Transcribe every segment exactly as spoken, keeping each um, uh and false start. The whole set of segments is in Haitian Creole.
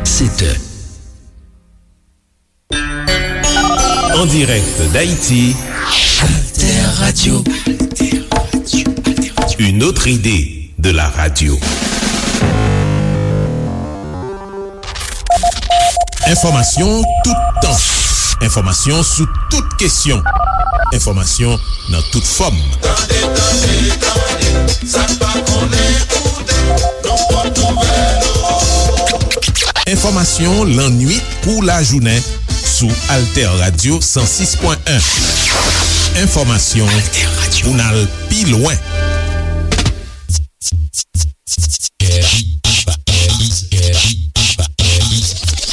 Sept heures. En direct d'Haïti, Alter Radio. Une autre idée de la radio. Enfòmasyon toutan. Enfòmasyon sou tout kesyon. Enfòmasyon nan tout fòm. Tande, tande, tande, sa n pa konnen koute, nan pòt nouvèl. Enfòmasyon lannuit kou lajounen sou Alter Radio san sis pwen en. Enfòmasyon pou n al pi lwen.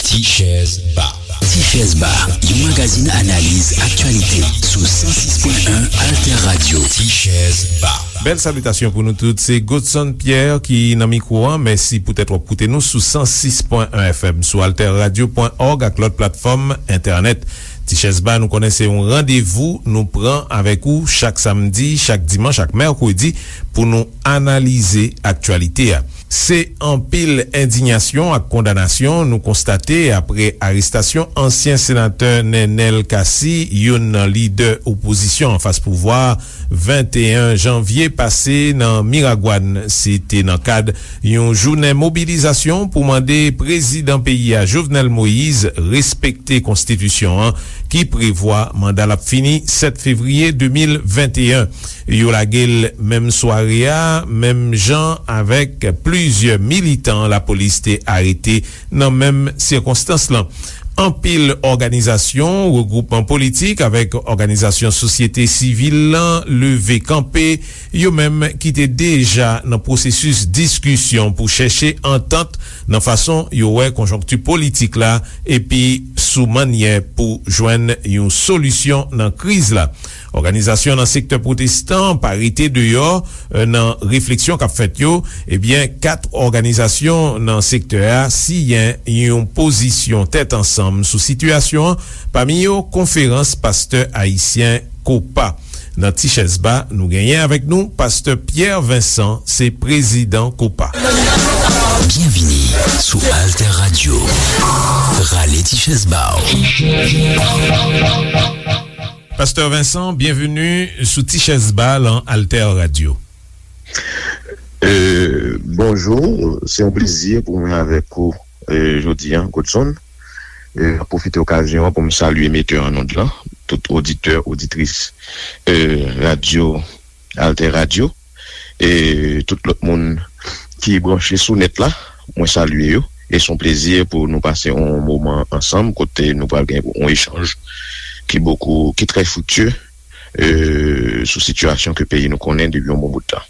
Ti Chèz Ba. Ti Chèz Ba, yon magazin analiz aktyalite sou san sis pwen en Alter Radio. Ti Chèz Ba. Bèl salitasyon pou nou tout. Se Godson Pierre ki nan mikwo a. Mèsi poutèt w ap koute nou sou san sis pwen en F M, sou alter radio pwen org ak lòt platfòm entènèt. Ti Chèz Ba, nou konnen se yon randevou nou pran avèk ou chak samdi, chak dimanch, ak mèkredi pou nou analize aktyalite a. Se anpil endiyasyon ak kondanasyon nou konstate apre arestasyon ansyen senatè Nenel Cassy, youn nan lidè opozisyon anfas pouvwa, venteyen janvye pase nan Miragwàn. Se te nan kad yon jounen mobilizasyon pou mande prezidan peyi a, Jovenel Moïse, respekte konstitisyon an ki prevwa manda l ap fini sèt fevriye de mil venteyen. Yo lage l menm sware a, menm jan avèk plizyè militan lapolis te arete nan menm sikonstans lan. Anpil òganizasyon, regwoupman politik avèk òganizasyon sosyete sivil lan leve kanpe, yo menm ki te deja nan pwosesis diskisyon pou chèche antant nan fason yo wè konjonkti politik la epi sou mannyè pou jwenn yon solisyon nan kriz la. Òganizasyon nan sektè pwotestan pa rete deyò, eh, nan refleksyon k ap fèt yo. Ebyen, kat òganizasyon nan sektè a siyen yon pozisyon tèt ansanm sou sitiyasyon an, pami yo Konferans Pastè Ayisyen, kopa. Nan Ti Chèz Ba, nou genyen avèk nou Pastè Pierre Vincent, se prezidan kopa. Byenvini sou Alter Radio. Rale ti chèz ba w. Pastè Vincent, byenveni sou Ti Chèz Ba lan Alter Radio. Euh, bonjou, se yon plezi pou mwen avèk ou, euh, jodi a, Godson. Euh, m ap pwofite okazyon an pou m salye metè an onn lan, tout oditè, oditris, euh, radyo, Alter Radio, e tout lòt moun ki branche sou nèt la, mwen salye yo. E se yon plezi pou nou pase yon moman ansanm kote nou pral gen yon echanj ki bokou, ki trè friktye, euh, sou sitiyasyon ke peyi nou konnen depi yon bon bout tan.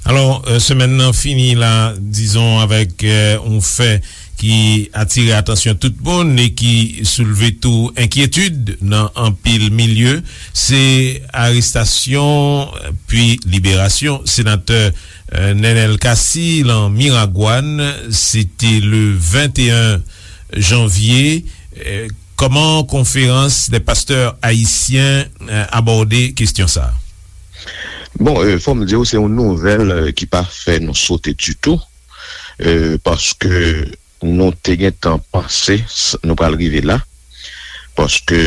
Alò, euh, semèn nan fini la, dizon, avèk, euh, yon fè ki atire atansyon tout moun e ki soulve tou enkyetid nan anpil milye, se arestasyon, euh, pi liberasyon senatè, euh, Nenel Cassy lan Miragwàn. Se te le venteyen janvye. Euh, kòman Konferans dè Pastè Ayisyen, euh, abòde kesyon sa a? Bon, euh, fò m di w, se yon nouvèl, euh, ki pa fè nou sote ditou, euh, paske nou te gentan panse s-, nou pral rive la, paske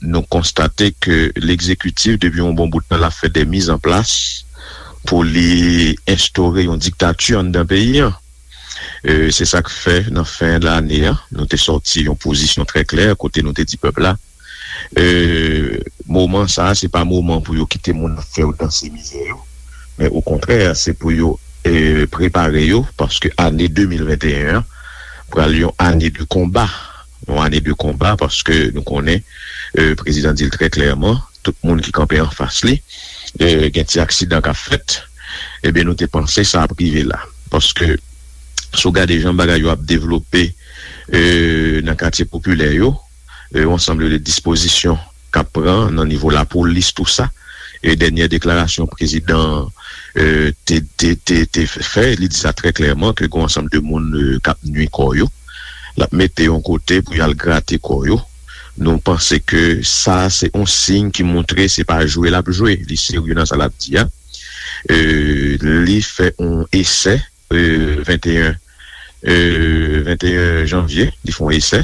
nou konstate ke legzekitif, depi yon bon bout tan, l ap fè de mizanplas pou li enstore yon diktati anndan peyi an. Euh, se sa k fè, nan fen lane a, nou te sòti yon pozisyon trè klè, kote nou te di pèp la, euh, moman sa a, se pa moman pou yo kite moun ap fè yo danse mizè yo, men okontrè, se pou yo, euh, prepare yo, paske ane de mil venteyen an pral yon ane de konba. Yon ane de konba, paske nou konnen, euh, prezidan di l trè klèman, tout moun ki kanpe anfas li, euh, gen ti aksidan k ap fèt. Ebyen, nou te panse sa ap rive la. Paske, si w gade jan bagay yo ap devlope, euh, nan katye popilè yo, euh, yon ansanm de dispozisyon k ap pran nan nivo lapolis, tou sa, e dènyè deklarasyon prezidan, euh, te, te, te, te fè, li di sa trè klèman, ke gen yon ansanm de moun, euh, k ap nui kò yo. L ap mete yon kote pou y al grate kò yo. Nou panse ke sa, se yon siy ki montre se pa jwe l ap jwe, li serye nan sa l ap di a. Euh, li fè yon esè, euh, venteyen e, venteyen janvye, li fè yon esè,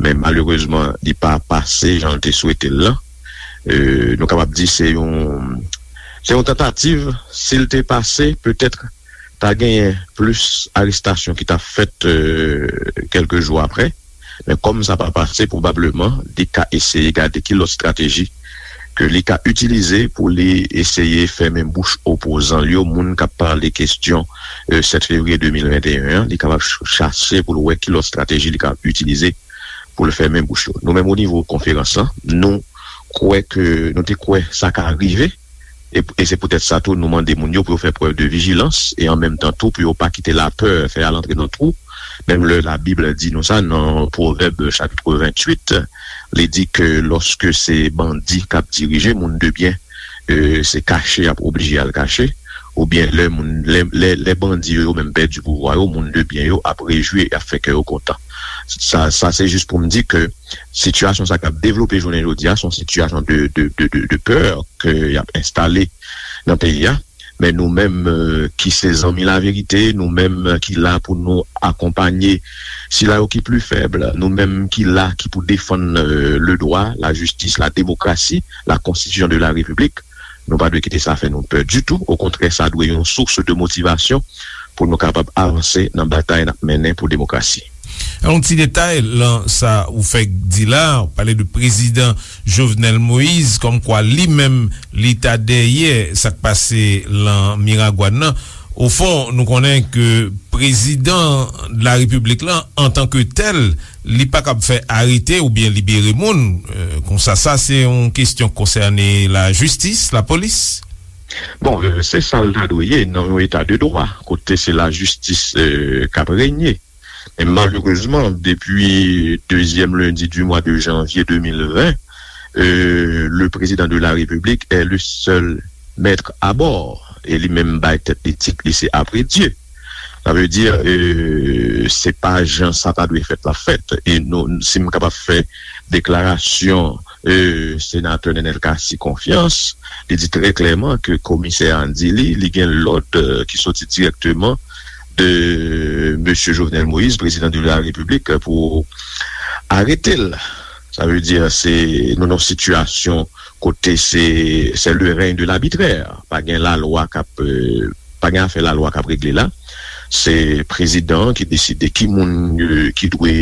men malerezman, li pa pase jan l te swete l lan. E, nou kapab di se yon, se yon tantativ, si l te pase, petèt ta genyen plis arestasyon ki ta fèt, e, kèlke jou apre. Men kòm sa pa pase, pwobableman, li ka eseye gade ki lòt estrateji ke li ka itilize pou li eseye fèmen bouch opozan l yo, moun k ap pale kesyon, e, sèt fevriye de mil venteyen an, li kapab ch-, chache pou l wè ki lòt estrateji li ka itilize pou l fèmen bouch yo. Nou menm, o nivo konferans lan, nou kwè ke, nou te kwè sa ka rive, e, e se poutèt sa tou nou mande moun yo pou yo fè prèv de vijilans e an menm tan tou pou yo pa kite lapè fè y al antre nan twou. Menm lè Labib di nou sa nan Pwovèb chapit venntuit, li di ke lòske se bandi k ap dirije, moun de byen, e, se kache y ap oblije al kache, oubyen lè moun, lè, lè, lè bandi yo, yo menm pèdi pouvwa yo, moun de byen yo ap rejwi, y ap fè kè yo kontan. Sa, sa se jis pou m di ke sitiyasyon sa k ap devlope jounen jodi a, se yon sitiyasyon de, de, de, de, de pè ke y ap enstale nan peyi a. Men nou menm, e, ki se zanmi laverite, nou menm ki la pou nou akonpanye sila yo ki pli fèb, nou menm ki la ki pou defann, e, le dwa, la jistis, la demokrasi, la konstitisyon de la repiblik, nou pa dwe kite sa fè nou pè ditou. Okontrè, sa dwe yon sous de motivasyon pou nou kapab avanse nan batay n ap mennen pou demokrasi. Yon ti detay lan sa ou fèk di la, ou pale de prezidan Jovenel Moïse, kòmkwa li menm, li ta dèyè sa k pase lan Miragwàn nan. Ofon, nou konnen ke prezidan de la repiblik lan, antanke tèl, li pa kab fè arete oubyen libere moun. E, konsa, sa se yon kesyon k konsène lajistis, lapolis. Bon, e, se sa l ta dwe ye nan yon eta de dwa, kote se lajistis, e, k ap renye. Men malerezman, depi dezyèm lendi di mwa de janvye de mil ven, e, le président de la République est le seul maître à bord. E li menm bay tèt li tit li se Après Dieu. Sa vle di, e, se pa jan sa ta dwe fèt l ap fèt. E nou, si m kapab fè deklarasyon, e, senatè Nenel Cassy konfyans, li di trè klèman ke komisè a di li, li gen lòd, e, ki soti dirèkteman de mesye Jovenel Moïse, président de la République, pou arete l. Sa vle di, se, nou nan yon sitiyasyon kote se, c'est le règne de l'arbitraire. Pa gen lalwa k ap, e, pa gen afè lalwa k ap regle la. Se prezidan an ki deside ki moun, e, ki dwe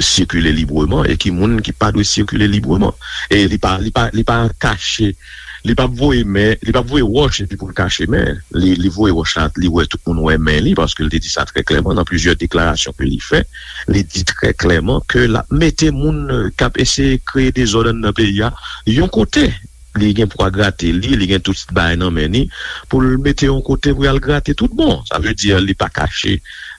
sikile libreman e ki moun ki pa dwe sikile libreman. E li pa, li pa, li pa kache, li p ap voye men, li p ap voye wòch epi pou l kache men. Li, li voye wòch la, li wè tout moun wè men li, paske l te di sa trè klèman nan plizyè deklarasyon ke li fè. Li di trè klèman ke l ap mete moun, e, k ap eseye kreye dezòd anndan peyi a yon kote. Li gen pwa grate li, li gen tout bagay nan men li, pou l mete yon kote pou y al grate tout bon. Sa vle di, li pa kache,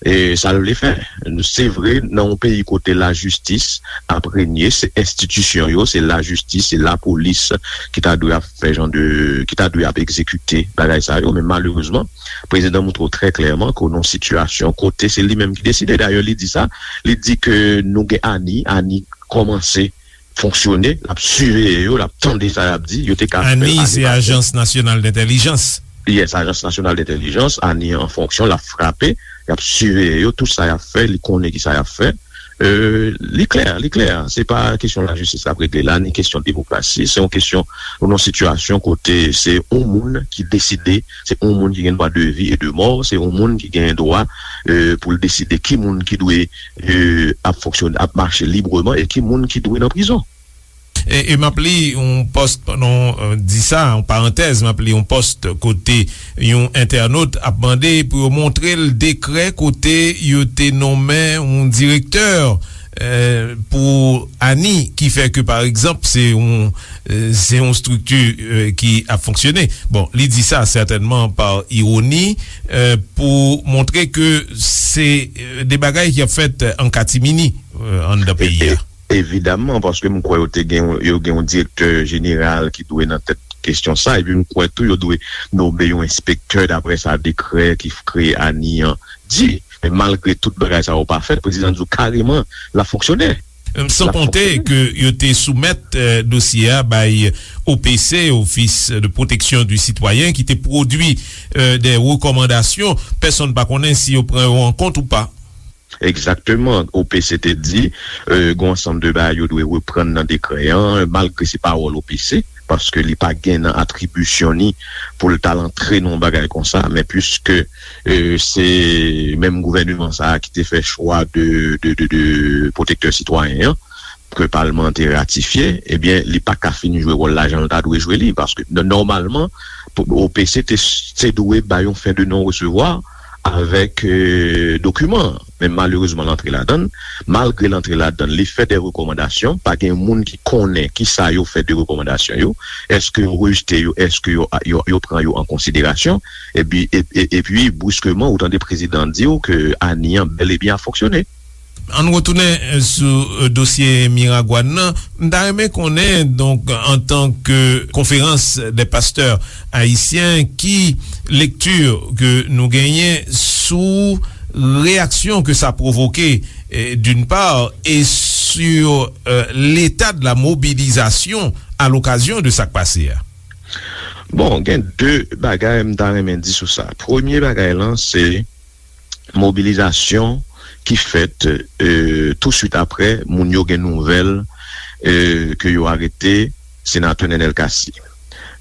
e, sa l vle fè. Se vre, nan yon peyi kote lajistis ap renye, se enstitisyon yo, se lajistis, se lapolis ki ta dwe ap fè jan de, ki ta dwe ap egzekite bagay sa yo, men malerezman, prezidan montre w trè klèman ke w nan yon sitiyasyon kote se li menm ki deside. Dayè, li di sa, li di ke nou gen ANI, ANI kòmanse fonksyone, l ap siveye yo, l ap tande sa y ap di, yo te ka fè l ane pase. ANI, se Ajans Nasyonal Dentèlijans. Yes, Ajans Nasyonal Dentèlijans, ANI an fonksyon, l ap frape, y ap siveye yo, tout sa y ap fè, li konnen ki sa y ap fè. E, li klè, li klè. Se pa kesyon lajistis k ap regle la, ni kesyon demokrasi. Se yon kesyon, nou nan yon sitiyasyon kote se yon moun ki deside, se yon moun ki gen dwa de vi e de mò, se yon moun ki gen dwa, e, pou l deside ki moun ki dwe, e, ap fonksyone, ap mache libreman e ki moun ki dwe nan prizon. E, e m ap li yon pòs, pandan w, e, di sa, yon parantèz, m ap li yon pòs kote yon entènot ap mande pou yo montre l dekrè kote yo te nonmen yon direktè, e, pou ANI, ki fè ke, pa egzanp, se yon, e, se yon estrikti, e, ki ap fonksyone. Bon, li di sa sètènman pa iwoni, e, pou montre ke se, e, de bagay ki ap fèt an katimini, e, anndan peyi a. E, e, evidaman, paske m kwè yo te gen, yo gen yon direktè jeneral ki dwe nan tèt kesyon sa, epi m kwè tou yo dwe nonmen yon enspektè, daprè sa dekrè ki f-, kreye ANI an di. Men malgre tout bagay sa yo pa fèt, prezidan di w kareman l ap fonksyone. San konte ke yo te soumèt, e, dosye a bay O P C, Office de Protection du Citoyen, ki te pwodui, e, de rekòmandasyon. Pèsonn pa konnen si yo pran yo an kont ou pa. Egzakteman. O P C te di, e, gon ansanm de bagay yo dwe reprann nan dekrè an, malgre se pawòl O P C, paske li pa gen nan atribisyon ni pou l t al antre nan yon bagay konsa, men piske, e, se menm gouvèneman sa a ki te fè chwa de, de, de, de pwotektè sitwayen an, ke palman an te ratifye, ebyen, li pa ka fin jwe wòl la jan l ta dwe jwe li, paske n-, nòmalman, pou, O P C te, te dwe bay yon fen de non resevwa avèk, e, dokiman an. Men malerezman, l antre ladan l. Malgre l antre ladan l, li fè de rekòmandasyon. Pa gen moun ki konnen ki sa yo fè de rekòmandasyon yo. Èske yo rejte yo? Èske yo, yo, yo pran yo an konsiderasyon? Epi, e, e, epi, briskeman, ou tande prezidan an di w ke ANI an bèl e byen ap fonksyone. Ann retounen, eh, sou, eh, dosye Miragwàn nan. M ta renmen konnen, donk, antanke Konferans dè Pastè Ayisyen, ki lekti ke nou genyen sou reyaksyon ke sa pwovoke, eh, d'une part, et sur, eh, l'état de la mobilisation à l'occasion de sa k pase a? Bon, gen de bagay m ta renmen di sou sa. Premye bagay lan, se mobilizasyon ki fèt, e, touswit apre moun yo gen nouvèl, e, ke yo arete senatè Nenel Cassy.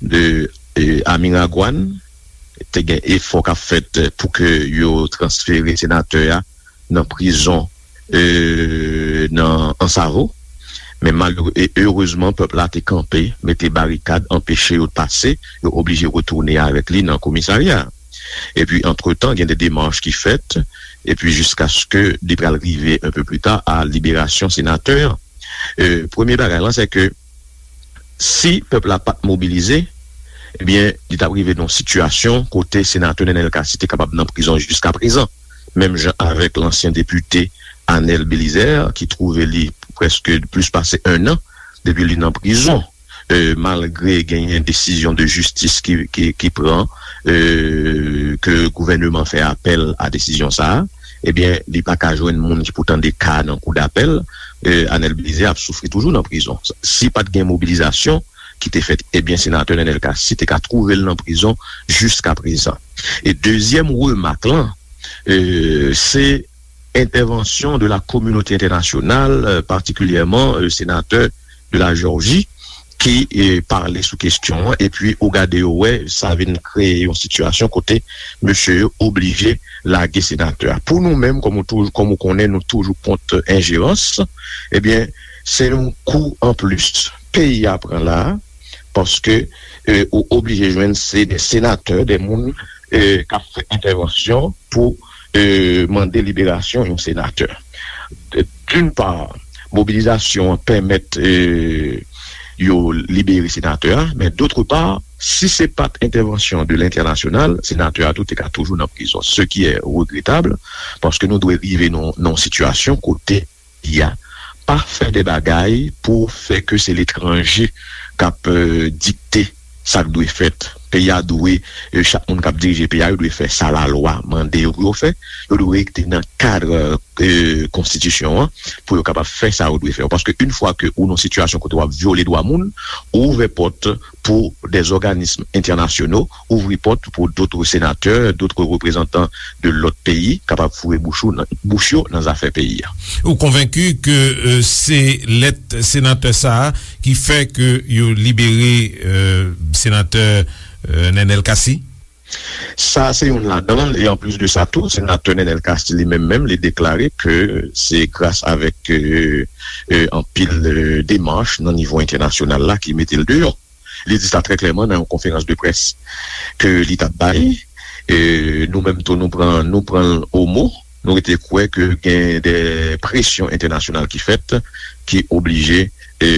De, e, a Miragwàn, te gen efò k ap fèt pou ke yo transfere senatè a nan prizon, e, nan Ansavo. Men malere-, e, erezman, pèp la te kanpe, mete barikad, anpeche yo pase, yo oblije retounen avèk li nan komisarya. Epi, antretan, gen de demach ki fèt, epi jiskaske li pral rive un peu plus tard a liberasyon senatè an. E, premye bagay lan, se ke si pèp la pa t mobilize, ebyen, li t ap rive nan yon sitiyasyon kote senatè Nenel Cassy te kapab nan prizon jiskaprezan, menm jan avèk lansyen depite Anel Belizaire, ki twouve li prèske plis pase en an depi li nan prizon. E, malgre genyen desizyon de jistis ki, ki, ki pran, e, ke gouvèneman fè apèl a desizyon sa a, ebyen, li pa ka jwenn moun ki pou tande ka nan kou dapèl, e, Anel Belizaire ap soufri toujou nan prizon. Si pa t gen mobilizasyon ki te fèt, ebyen, senatè Nenel Cassy te ka twouve l nan prizon jiskaprezan. E dezyèm remak lan, e, se entèvansyon de la kominote entènasyonal, e, patikilyèman, e, senatè de la Jòji, ki, e, pale sou kesyon an, epi ou gade yo wè, sa vin kreye yon sitiyasyon kote mesye yo oblije lage senatè a. Pou nou menm, kòm ou toujou, kòm ou konnen, nou toujou kont enjerans, ebyen, se yon kou anplis peyi a pran la a, paske, e, ou oblije jwenn se de senatè, de moun, e, k ap fè entèvansyon pou, e, mande liberasyon yon senatè. D'une part, mobilizasyon an pèmèt, e, yo libere senatè a, men d'autre part, si se pa t entèvansyon de lentènasyonal, senatè a tou te ka toujou nan prizon, ce qui est regrettable, paske nou dwe rive nan, nan yon sitiyasyon kote peyi a pa fè de bagay pou fè ke se letranje k ap, e, dikte sa k dwe fèt. Peyi a dwe, e, chak moun k ap dirije peyi a, yo dwe fè sa lalwa mande yo pou yo fè. Yo dwe rete nan kad, e, konstitisyon an pou yo kapab fè sa yo dwe fè. Paske yon fwa ke ou nan sitiyasyon kote w ap vyole dwa moun, ou ouvè pòt pou des organismes internationaux, ouvri pòt pou d'autres sénateurs, d'autres représentants de lòt peyi kapab foure bouch ou nan, bouch yo nan zafè peyi a. Ou konvenki ke, e, se lèt senatè sa a ki fè ke yo libere, e, senatè, e, Nenel Cassy? Sa se youn ladan l, e anplis de sa tou, senatè Nenel Cassy li menm menm, li deklare ke se gras avèk, e, e, anpil, e, demach nan nivo entènasyonal la ki mete l deyò. Li di sa trè klèman nan yon konferans de près ke li t ap bay. E, nou menm tou, nou pran, nou pran l o mo. Nou rete kwè ke gen de presyon entènasyonal ki fèt, ki oblije, e,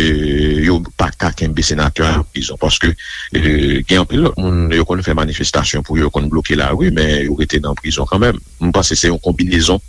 yo pa ka kenbe senatè a nan prizon. Paske, e, gen anpil lòt moun, yo konn fè manifestasyon pou yo, yo konn bloke lari, men yo rete nan prizon kanmenm. M panse se yon konbinezon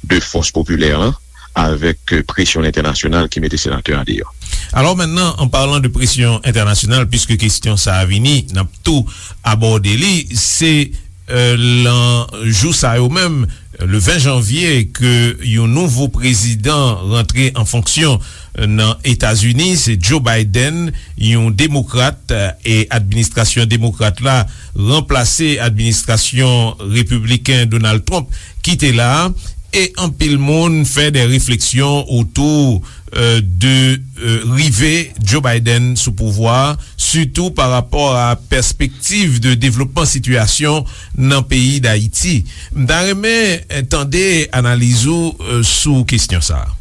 de fòs popilè an avèk, e, presyon entènasyonal ki mete senatè a deyò. Alors maintenant, en parlant de pression internationale, puisque kesyon sa a vini, n ap tou abòde li, se, e, lan jou sa yo menm, le ven janvye, ke yon nouvo prezidan rantre an fonksyon, e, nan Etazini, se Joe Biden, yon demokrat, e, e administrasyon demokrat la ranplase administrasyon repibliken Donald Trump ki te la a. E anpil moun fè de refleksyon otou, euh, de, euh, rive Joe Biden sou pouvwa, sitou pa rapò a pèspektiv de devlopman sitiyasyon nan peyi Dayiti. M ta renmen, euh, tande analiz ou, euh, sou kesyon sa a.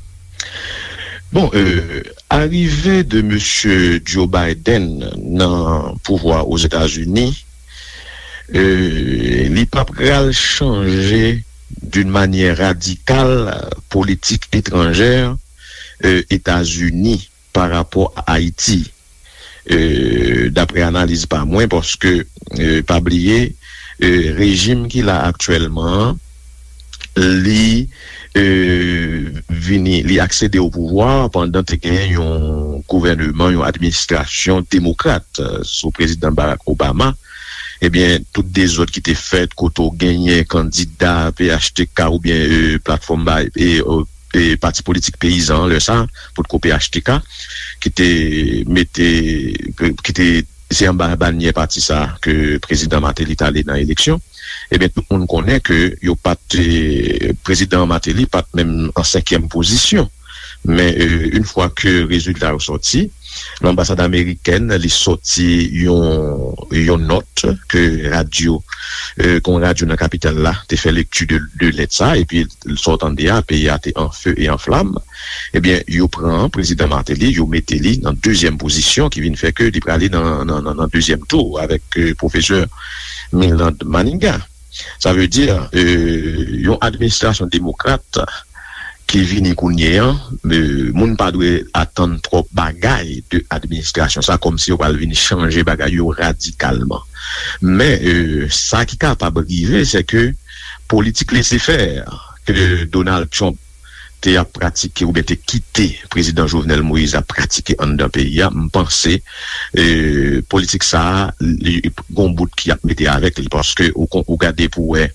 Bon, euh, arive de mesye Joe Biden nan pouvwa Ozetazini, euh, li pa pral chanje d'une manière radicale politik etranjè, euh, Etazini pa rapò a Ayiti. Euh, daprè analiz pa mwen, paske, euh, pa bliye, euh, rejim ki la aktyèlman an, li, euh, vini, li aksede o pouvwa pandan te gen yon gouvèneman, yon administrasyon demokrat, euh, sou prezidan Barack Obama. Ebyen, tout dezòd ki te fèt, kote w genyen kandida P H T K oubyen, euh, platfòm bay, e, euh, e pati politik peyizan an, lè sa, potko P H T K, ki te mete, ki te, se anba banyè pati sa ke prezidan Martelly t ale nan eleksyon. Ebyen, tout moun konnen ke yo pa t, eh, prezidan Martelly pa t menm an senkyèm pozisyon. Men, eh, yon fwa ke rezilta yo sòti, lanbasad amerikèn, li sòti yon, yon nòt ke radyo, eh, ke yon radyo nan kapital la te fè lekti de, de lèt sa, epi sa w tande a, peyi a te an fe e an flam. Ebyen, yo pran prezidan Martelly, yo mete li nan dezyèm pozisyon, ki vin fè ke li prale nan, nan, nan, nan dezyèm tou avèk, eh, pwofesè Milland Manigat. Sa vle di, eh, yon administrasyon demokrat ki vini kounye a, eh, moun pa dwe atann twòp bagay de administrasyon sa, kòmsi yo pral vin chanje bagay yo radikalman. Men, eh, sa ki kapab rive, se ke politik lese fè ke Donald Trump te ap pratike oubyen te kite prezidan Jovenel Moïse ap pratike anndan peyi a, m panse, eh, politik sa a, li, gon bout ki ap mete avèk li, paske ou kon-, ou gade pou wè,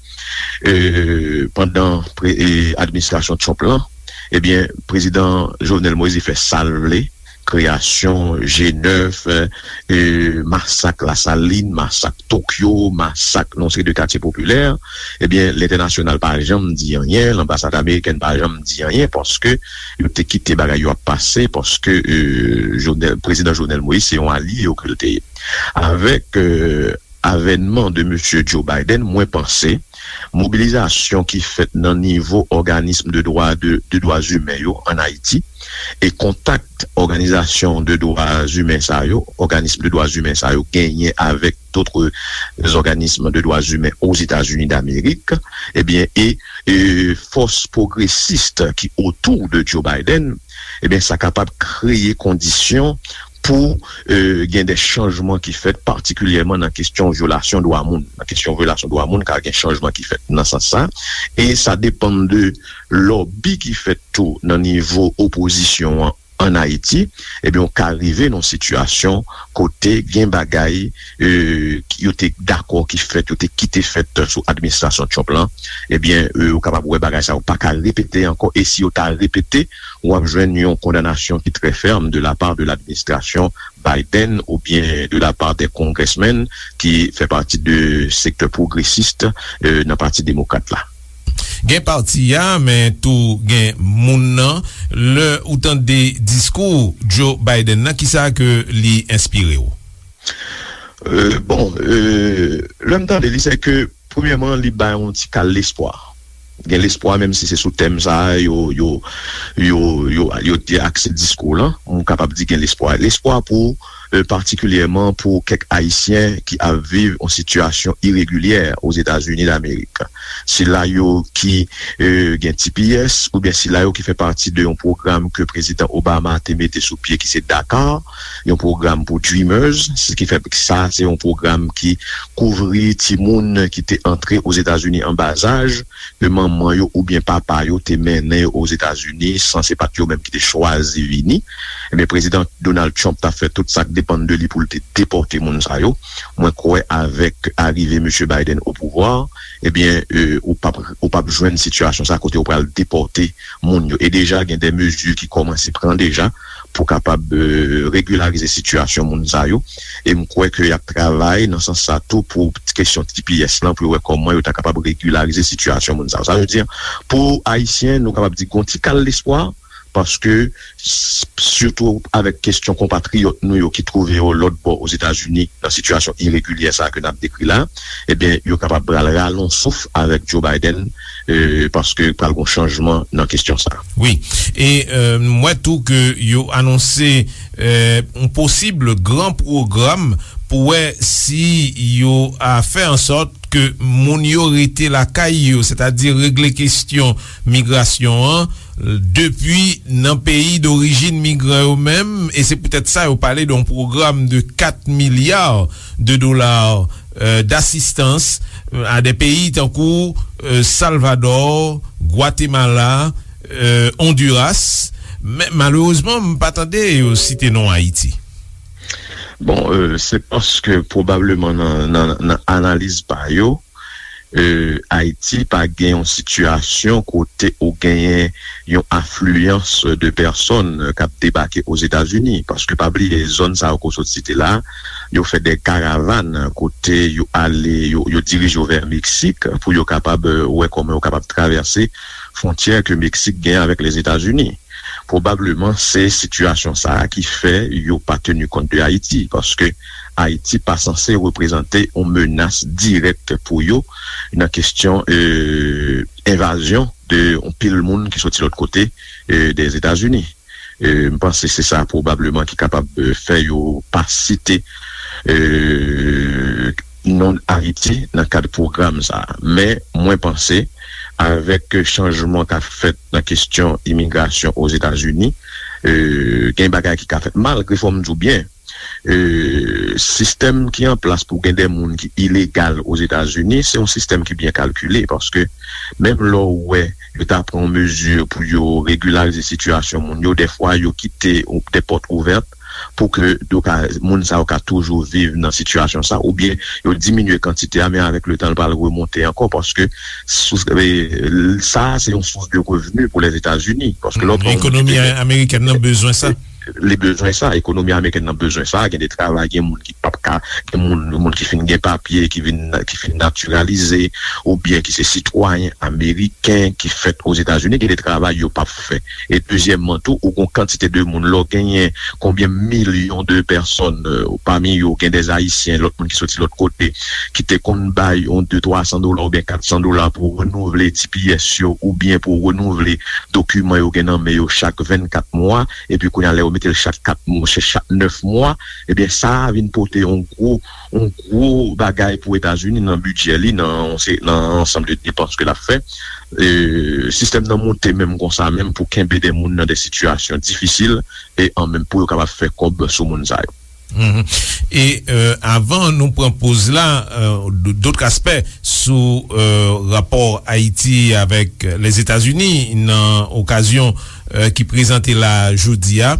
eh, pandan pre-, eh, administrasyon Trump lan, ebyen, prezidan Jovenel Moïse fè sa l vle, kreyasyon G nèf, eh, eh, masak Lasalin, masak Tokyo, masak nan yon seri de katye popilè, ebyen, lentènasyonal pa janm di anyen, lanbasad amerikèn pa janm di anyen, paske yo te kite bagay yo ap pase, paske, eh, Jovenel, prezidan Jovenel Moïse se yon alye yo ke l te ye. Avèk, eh, avènman de mesye Joe Biden, mwen panse mobilizasyon ki fèt nan nivo òganism de dwa, de, de dwa imen yo ann Ayiti e kontak òganizasyon de dwa imen sa yo, òganism de dwa imen sa yo genyen avèk dòt òganism de dwa imen Ozetazini Damerik, ebyen, e, e fòs pwogresis ki otou de Joe Biden, ebyen, sa kapab kreye kondisyon pou, eh, gen de chanjman ki fèt, patikilyèman nan kesyon vyolasyon dwa moun. Nan kesyon vyolasyon dwa moun, ka gen chanjman ki fèt nan sans sa. E sa depann de lòbi ki fèt tou nan nivo opozisyon an ann Ayiti. Ebyen, ou ka rive nan yon sitiyasyon kote gen bagay, eh, ki yo te dakò ki fèt, yo te kite fèt sou administrasyon Trump lan. Ebyen, eh, ou kapab wè bagay sa yo pa ka repete ankò. E si yo ta repete, w ap jwenn yon kondanasyon ki trè fèm de la part de l'administration Biden oubyen de la part des congressmen ki fè pati de sektè pwogresis, eh, nan Pati Demokrat la. Gen pati a, men tou gen moun nan. Lè ou tande diskou Joe Biden nan, kisa ke li enspire w? Euh, bon, euh, lè m tande li, se ke, premyèman, li bay yon ti kal lespwa. Gen lespwa, menm si se sou tèm sa a, yo, yo, yo, yo, yo te akse diskou lan, m kapab di gen lespwa. Lespwa pou, euh, patikilyèman pou kèk Ayisyen ki ap viv yon sitiyasyon iregilyè Ozetazini Damerik. Sila yo ki, euh, gen T P S, oubyen sila yo ki fè pati de yon pwogram ke Prezidan Obama te mete sou pye, ki se DACA, yon pwogram pou Dreamers, se ki fè sa, se yon pwogram ki kouvri timoun ki te antre Ozetazini an bazaj, ke manman yo oubyen papa yo te mennen yo Ozetazini, san se pa t yo menm ki te chwazi vini. Ebyen, Prezidan Donald Trump t ap fè tout sa k depann de li pou l te depòte moun sa yo. Mwen kwè avèk arive mesye Biden o pouvwa, ebyen, euh, ou p ap, ou p ap jwenn sitiyasyon sa kote yo pral depòte moun yo. E deja, gen de mezi ki kòmanse pran deja pou kapab, e, regilarize sitiyasyon moun sa yo. E m kwè ke y ap travay nan sans sa tou pou kesyon T P S lan, pou yo wè kòman yo ta kapab regilarize sitiyasyon moun sa yo. Sa vle di, pou Ayisyen, nou kapab di gon ti kal lespwa, paske, s- sitou avèk kesyon konpatriyòt nou yo ki twouve yo lòt bò Ozetazini nan sitiyasyon iregilyè sa a ke n ap dekri la, ebyen, yo kapab pral rale yon souf avèk Joe Biden, e, paske pral gon chanjman nan kesyon sa a. Wi. E, e, m wè tou ke yo anonse, e, yon posib gran pwogram pou wè si yo a fè an sòt ke moun yo rete lakay yo, sètadi regle kesyon migrasyon an, depi nan peyi dorijin migran yo menm, e se poutèt sa yo pale de yon pwogram de kat milya de dola, euh, d'asistans, euh, a de peyi tankou, euh, Salvador, Gwatemala, euh, Honduras. Men malerezman, m pa tande yo site non Ayiti. Bon, euh, se paske pwobableman nan, nan, nan analiz pa yo, euh, Ayiti pa gen yon sitiyasyon kote ou genyen yon afliyans de pèsòn k ap debake Ozetazini. Paske pa bliye, zòn sa yo ke w sot site la, yo fè de karavàn kote yo ale, yo, yo dirije yo vè Meksik pou yo kapab, euh, wè kòman yo kapab travèse fwontyè ke Meksik gen avèk Lèzetazini. Pwobableman, se sitiyasyon sa a ki fè yo pa teni kont de Ayiti, paske Ayiti pa sanse reprezante yon menas dirèk pou yo nan kesyon, euh, envazyon de yon pil moun ki soti lòt kote, euh, dèzetazini. Euh, m panse se sa pwobableman ki kapab, euh, fè yo pa site, euh, non Ayiti nan kad pwogram sa a. Men, mwen panse, avèk chanjman k ap fèt nan kesyon imigrasyon Ozetazini, euh, gen bagay ki ka fèt, malgre, fò m di w byen, euh, sistèm ki an plas pou gen de moun ki ilegal Ozetazini, se yon sistèm ki byen kalkile, paske menm lè w wè yo ta pran yon mezi pou yo regilarize sitiyasyon moun yo, dèfwa yo kite de pòt ouvèt pou ke yo ka, moun sa yo ka toujou viv nan sitiyasyon sa, oubyen yo diminye kantite a, men avèk letan, l pral remonte ankò, paske sous, e, sa a se yon sous de revni pou Lèzetazini, paske lè w pran yon moun ki ekonomi te gen amerikèn nan bezwen sa. Li bezwen sa, ekonomi amerikèn nan bezwen sa, gen de travay, gen moun ki p ap ka, gen moun, moun ki fin gen papye, ki vin, ki fin natiralize, oubyen ki se sitwayen ameriken ki fèt Ozetazini, gen de travay yo p ap fè. E dezyèmman tou, ou gon kantite de moun, lè w genyen konbyen milyon de pèsòn, euh, pami yo gen de Ayisyen, lòt moun ki soti lòt kote, ki te konn bay yon de twa san dola oubyen kat san dola pou renouvle T P S yo, oubyen pou renouvle dokiman yo gen nan men yo chak vennkat mwa, epi kounye a, lè yo mete l chak kat mwa, chak nèf mwa, ebyen, sa a vin pote yon gwo, yon gwo bagay pou Etazini nan bidjè li, nan, nan ansanm de depans ke l ap fè. E, sistèm nan monte menm konsa, menm pou kenbe de moun nan de sitiyasyon difisil, e an menm pou yo kapab fè kòb sou moun sa yo. Mhm. E, euh, avan nou pran poz la, euh, d-, dòt aspè sou, euh, rapò Ayiti avèk Lèzetazini nan okazyon, euh, ki prezante la jodi a.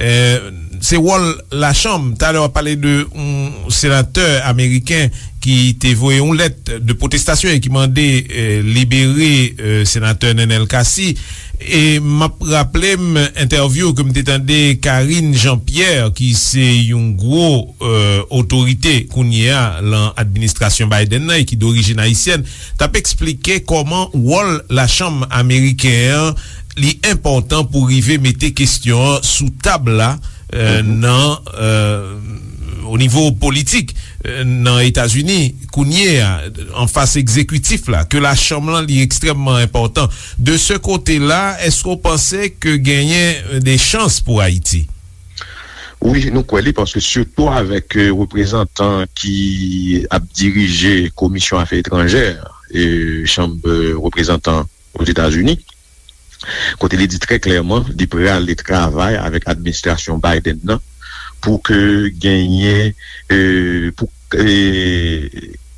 Euh, se wòl lachanm. Talè w ap pale de yon senatè ameriken ki te voye yon lèt de pwotestasyon e ki mande, euh, libere, euh, senatè Nenel Cassy. E m ap raple m entèvyou ke m te tande Karine Jean-Pierre, ki se yon gwo, euh, otorite kounye a lan administrasyon Biden nan e ki dorijin ayisyèn, t ap eksplike kòman wòl lachanm ameriken an, li enpòtan pou rive mete kesyon an sou tab la, euh, nan, euh, o nivo politik, euh, nan Etazini, kounye a, an fas egzekitif la, ke lachanm lan li ekstrèmman enpòtan. De se kote la, èske w panse ke genyen, euh, de chans pou Ayiti? Wi, nou kwè li, paske sitou avèk, euh, reprezantan ki ap dirije Komisyon Afè Etranjè, e Chanm, euh, Reprezantan Ozetazini, kote li di trè klèman li prale travay avèk administrasyon Biden nan pou ke genyen, euh, pou, euh,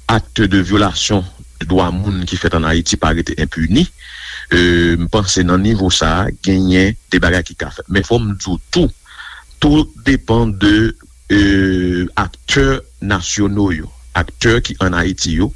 akt de vyolasyon de dwa moun ki fèt an Ayiti pa rete enpini. Euh, m panse nan nivo sa a, genyen de bagay ki ka fèt. Men fò m di w tou, tou depann de, euh, aktè nasyono yo, aktè ki an Ayiti yo,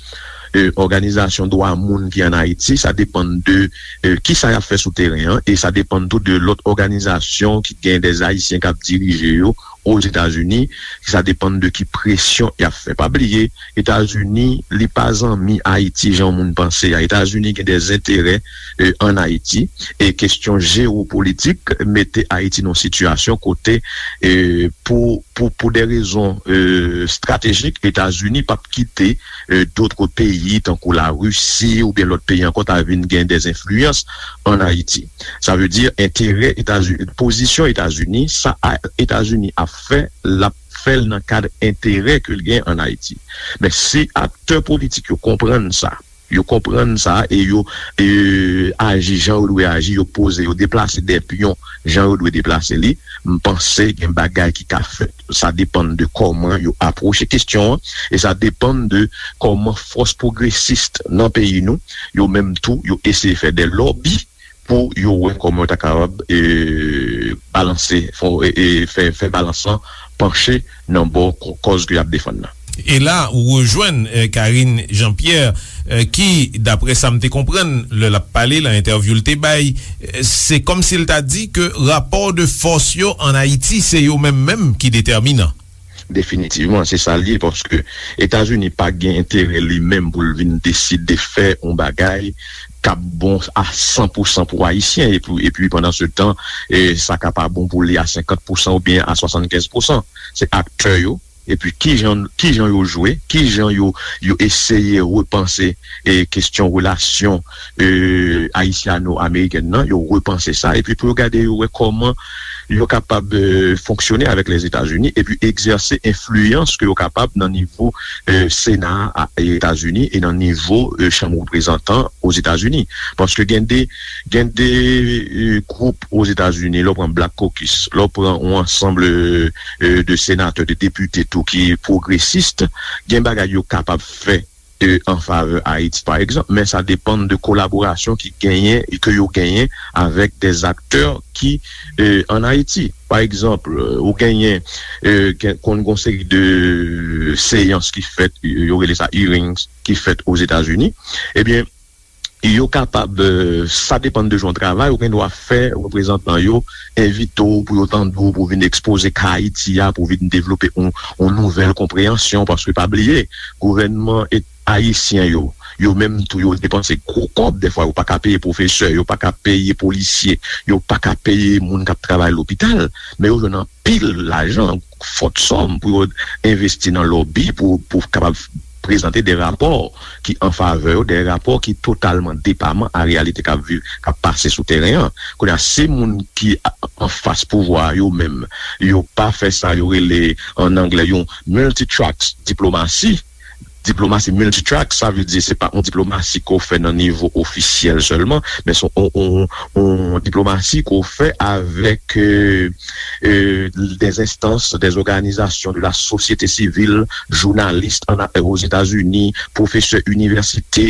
e, òganizasyon dwa moun ki ann Ayiti, sa depann de, e, kisa y ap fè sou teren an, e sa depann tou de lòt òganizasyon ki gen dè Ayisyen k ap dirije yo Ozetazini, sa depann de ki presyon y ap fè. Pa bliye, Etazini, li pa zanmi Ayiti jan moun panse a. Etazini gen dè enterè, e, ann Ayiti, e kesyon jewopolitik mete Ayiti nan yon sitiyasyon kote, e, pou, pou, pou de rezon, e, estratejik, Etazini p ap kite, e, dòt peyi, tankou Larisi oubyen lòt peyi ankò, ta vin gen dè enfliyans ann Ayiti. Sa vle di, enterè Etazini, pozisyon Etazini, sa a, Etazini ap fè, l ap fè l nan kad enterè ke l gen ann Ayiti. Men si aktè politik yo konprann sa, yo konprann sa e yo, e, aji jan yo dwe aji, yo poze, yo deplase de pyon jan yo dwe deplase li, m panse gen bagay ki ka fèt. Sa depann de kòman yo apwoche kesyon an, e sa depann de kòman fòs pwogresis nan peyi nou, yo menm tou, yo eseye fè de lòbi pou yo wè kòman yo ta kapab, e, balanse, fè, e, e, fè, fè balans lan panche nan bò kò-, kòz ke y ap defann nan. E la, ou rejwenn, e, Karine Jean-Pierre, e, ki, daprè sa m te konprann, lè l ap pale, nan entèvyou l te bay, e, se kòmsi l ta di ke rapò de fòs yo ann Ayiti, se yo menm menm ki detèminan. Definitivman, se sa l ye, paske Etazini pa gen enterè li menm pou l vin deside fè yon bagay k ap bon a san pou san pou Ayisyen, epi, epi pandan se tan, e, sa ka pa bon pou li a senkant pou san oubyen a swasannkenz pou san. Se aktè yo, epi kijan, kijan yo jwe, kijan yo, yo eseye repanse, e, kesyon relasyon, e, ayisyano-amerikèn nan, yo repanse sa, epi pou yo gade, yo wè kòman yo kapab, e, fonksyone avèk Lèzetazini epi egzèse enfliyans ke yo kapab nan nivo, e, Sena a Etazini e nan nivo, e, Chanm Reprezantan Ozetazini. Paske gen de, gen de, e, gwoup Ozetazini, lè w pran Black Caucus, lè w pran yon ansanm, e, e, de senatè, de depite tou ki pwogresis, gen bagay yo kapab fè e, an favè Ayiti, pa egzanp, men sa depann de kolaborasyon ki genyen e ke yo genyen avèk dè aktè ki, e, ann Ayiti. Pa egzanp, e, ou genyen, e, gen, konn gon seri de seyans ki fèt, yo rele sa hearings, ki fèt Ozetazini. Ebyen, yo kapab, e, sa depann de jan w travay, ou gen dwa fè reprezantan yo envite w pou yo tande w, pou w vin ekspoze ka Ayiti a, pou w vin devlope yon, yon nouvèl konpreyansyon, paske pa bliye, gouvènman et-, ayisyen yo, yo menm tou, yo depanse gwo kòb, dèfwa yo pa ka peye pwofesè, yo pa ka peye polisye, yo pa ka peye moun k ap travay lopital, men yo jwenn anpil lajan, fòt sòm pou yo envesti nan lòbi, pou, pou kapab prezante de rapò ki an favè yo, de rapò ki totalman depaman a reyalite k ap viv, k ap pase sou teren an. Kounye a, si moun ki a-, anfas pouvwa a yo menm, yo pa fè sa yo rele, an anglè, yon multi-track diplomasi. Diplomasi multi-track, sa vle di se pa yon diplomasi ke w fè nan nivo ofisyèl sèlman, men se yon, yon, yon diplomasi ke w fè avèk, e, e, des instances, des organisations de la société civile, jounalis ann, Ozetazini, pwofesè inivèsite,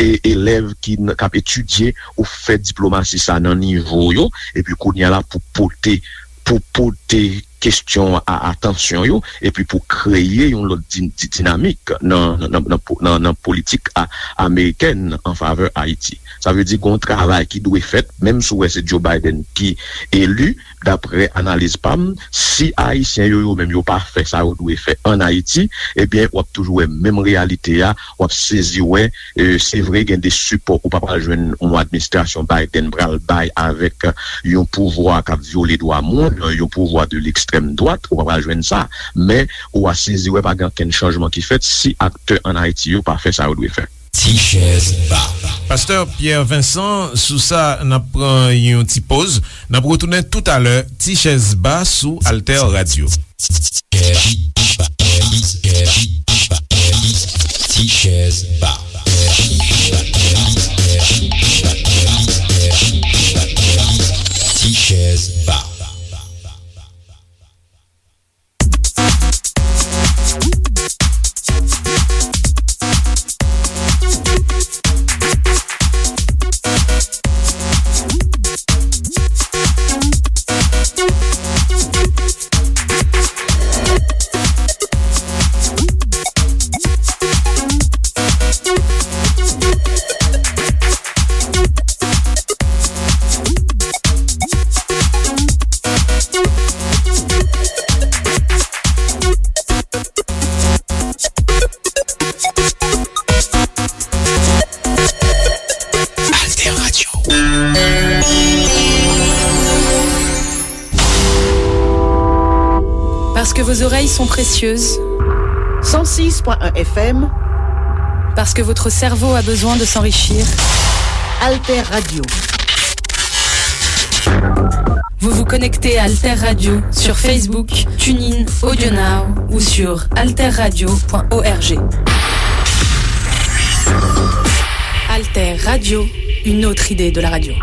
e, elèv ki n-, k ap etidye, ou fè diplomasi sa nan nivo yo, epi kounye a la pou pote, pou pote kesyon a atansyon yo, epi pou kreye yon lòt di-, di-, dinamik nan, nan, nan, nan po-, nan, nan politik a-, amerikèn an favè Ayiti. Sa vle di gon travay ki dwe fèt, menm si w wè se Joe Biden ki eli, daprè analiz pa m, si Ayisyen yo, yo menm yo pa fè sa yo dwe fè ann Ayiti, ebyen, w ap toujou wè menm reyalite a, w ap sezi wè, e, se vre gen de sipò ou pa pral jwenn yon administrasyon Biden pral bay avèk yon pouvwa k ap vyole dwa moun, yon pouvwa de lekstrèm dwat, ou pa pral jwenn sa, men ou a sezi wè pa gen okenn chanjman ki fèt si aktè ann Ayiti yo pa fè sa yo dwe fè. Ti chèz ba. Pastè Pierre Vincent, sou sa, n ap pran yon ti poz. N ap retounen toutalè, Ti chèz ba sou Alter Radio. Ti chèz ba. Ti chèz ba. Parce que vos oreilles sont précieuses. Cent six point un F M. Parce que votre cerveau a besoin de s'enrichir. Alter Radio. Vous vous connectez à Alter Radio sur Facebook, TuneIn, AudioNow ou sur alter radio point org. Alter Radio, une autre idée de la radio.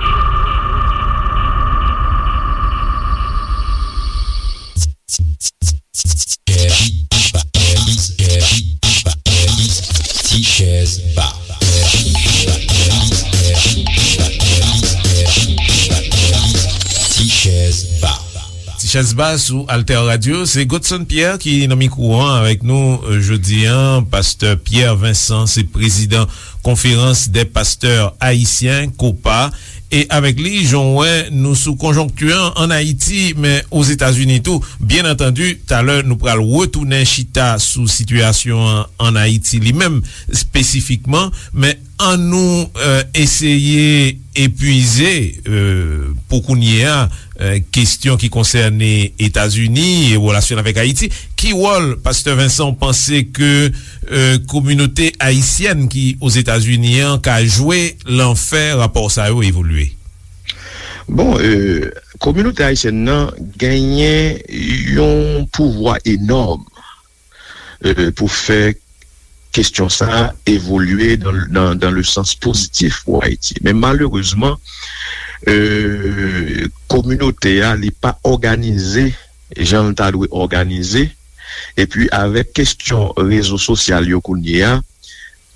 Ti chèz ba. Ti chèz ba. Ti chèz ba sou Alter Radio, se Godson Pierre ki nan mikwo an avèk nou, euh, jodi an. Pastè Pierre Vincent se prezidan Conférence des Pasteurs Haïtiens, kopa. E avèk li, jan w wè, nou sou konjonkti an ann Ayiti, men Ozetazini tou. Byen antandi, talè nou pral retounen chita sou sitiyasyon an ann Ayiti li menm, espesifikman, men ann nou, euh, eseye epuize, euh, pou kounye a, euh, kesyon ki konsène Etazini e relasyon l avèk Ayiti. Ki wòl, Pastè Vincent, w panse ke, euh, kominote ayisyèn ki Ozetazini an ka jwe lan fè rapò sa yo evolye? Bon, euh, kominote ayisyèn nan genyen yon pouvwa enòm, euh, pou fè kesyon sa a evolye dans, dans, dans le sens positif pou Ayiti. Men malerezman, euh, kominote a, li pa òganize jan l ta dwe òganize. Epi avèk kesyon rezo sosyal yo kounye a,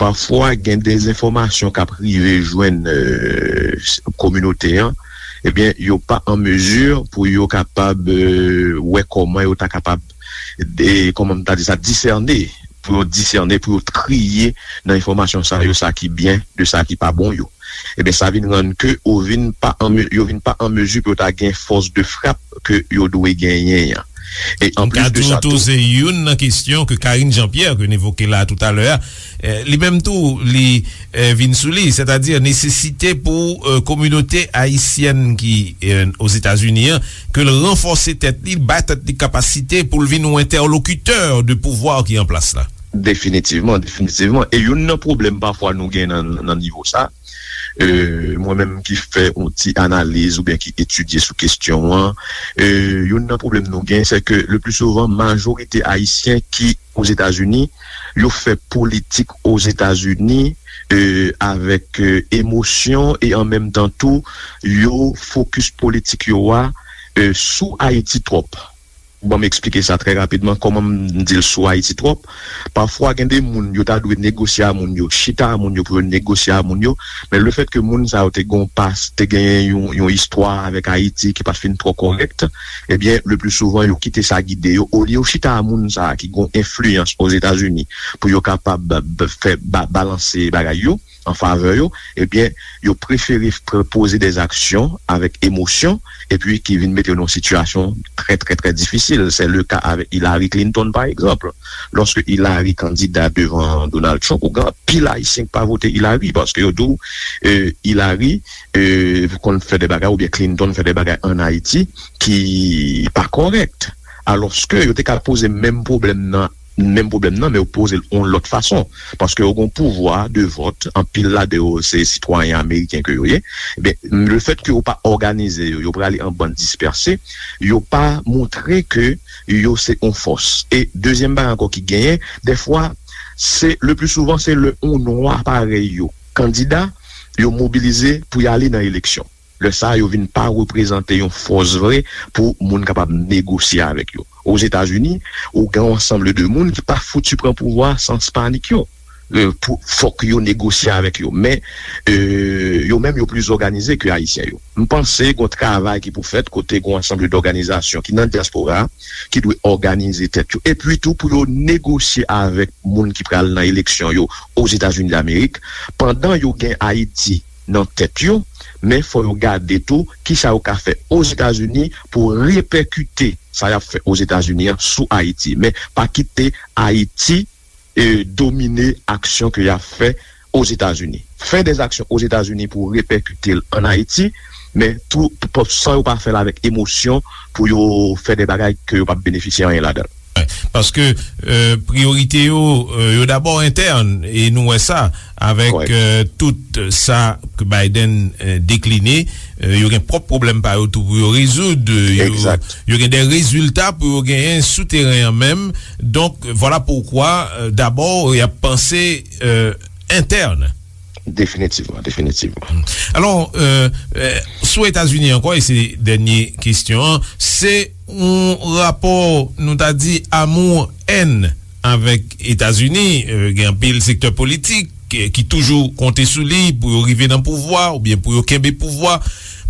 pafwa gen dezenfòmasyon k ap rive jwenn, euh, kominote an, ebyen, yo pa an mezi pou yo kapab, euh, wè kòman yo ta kapab, de, kòman m ta di sa, disène, pou yo disène, pou yo triye nan enfòmasyon sa yo, sa ki byen de sa ki pa bon yo. Ebyen, sa vin rann ke yo vin pa an me-, yo vin pa an mezi pou yo ta gen fòs de frap ke yo dwe genyen an. E an plis de sa tou, se youn nan kesyon ke Karine Jean-Pierre, ke n evoke la toutalè a, eh, li menm tou, li, eh, vin sou li, sètadi nesesite pou, eh, kominote ayisyèn ki, eh, Ozetazini an, ke l ranfòse tèt li, bay tèt li kapasite pou l vin yon entèlokitè de pouvwa ki an plas la. Definitivman, definitivman. E youn nan pwoblèm pafwa nou gen nan, nan nivo sa, euh, mwen menm ki fè yon ti analiz oubyen ki etidye sou kesyon an, euh, youn nan pwoblèm nou gen, se ke le pli souvan, majorite ayisyen ki Ozetazini, yo fè politik Ozetazini, euh, avèk, euh, emosyon e an menm tan tou, yo fokis politik yo a, euh, sou Ayiti twòp. Ban m eksplike sa trè rapidman, kòman m di l sou Ayiti twòp. Pafwa, gen de moun, yo ta dwe negosye a moun yo, chita a moun yo pou yo negosye a moun yo, men lefètke moun sa yo te gon pas, te genyen yon, yon istwa avèk Ayiti ki pa t fin twò kòrèk, ebyen, le pli souvan, yo kite sa gide yo. Olye yo chita a moun sa a ki gon enfliyans Ozetazini pou yo kapab b-, fè ba-, balanse bagay yo an favè yo, ebyen, yo prefere pr-, poze dè aksyon avèk emosyon, epi ki vin mete yo nan yon sitiyasyon trè, trè, trè difisil. Se le ka avèk Hillary Clinton, pa egzanp. Lòske Hillary kandida devan Donald Trump, ou gen anpil Ayisyen ki pa vote Hillary, paske yo di w, eh, Hillary, eh, konn fè de bagay, oubyen Clinton fè de bagay ann Ayiti ki pa kòrèk. Alòske yo te ka poze menm pwoblèm nan, menm pwoblèm nan, men yo poze l yon lòt fason. Paske yo gen yon pouvwa de vòt, anpil ladan yo se sitwayen ameriken ke yo ye. Ebyen, lefètke yo pa òganize yo, yo prale an bann dispèse, yo pa montre ke yo se yon fòs. E dezyèm bagay ankò ki genyen, dèfwa, se, le pli souvan, se lè yon nwa parèy yo kandida, yo mobilize pou y ale nan eleksyon. Lè sa a, yo vin pa reprezante yon fòs vre pou moun kapab negosye avèk yo. Ozetazini, ou gen yon ansanm de moun ki pa fouti pran pouvwa sans panik yo. Eh, pou, fòk yo negosye avèk yo. Men, eh, yo menm, yo pli òganize ke Ayisyen yo. M panse gen yon travay ki pou fèt kote gen yon ansanm dòganizasyon ki nan dyaspora a, ki dwe òganize tèt yo. Epi tou, pou yo negosye avèk moun ki pral nan eleksyon yo Ozetazini Damerik, pandan yo gen Ayiti nan tèt yo, men fò yo gade tou kisa yo ka fè Ozetazini pou repèkite sa y ap fè Ozetazini an sou Ayiti. Men pa kite Ayiti, eh, domine aksyon ke y ap fè Ozetazini. Fè dè aksyon Ozetazini pou repèkite l ann Ayiti, men tou, p-, p-, san yo pa fè l avèk emosyon pou yo fè de bagay ke yo p ap benefisye anyen ladan l. Paske, euh, priyorite yo, euh, yo dabò entèn, e nou wè sa avèk, euh, tout sa ke Biden, euh, dekline, euh, yo gen pwòp pwoblèm pa yo tou pou yo rezoud, euh, yo, yo gen de rezilta pou yo genyen sou teren an menm. Donk, vwala poukwa, euh, dabò, y ap panse, euh, entèn. Definitivman, definitivman. Alò, euh, euh, sou Etazini ankò, e se dènye kesyon an, se yon rapò, nou ta di, amou-èn avèk Etazini. Euh, gen anpil sektè politik, euh, ki toujou konte sou li pou yo rive nan pouvwa oubyen pou yo kenbe pouvwa.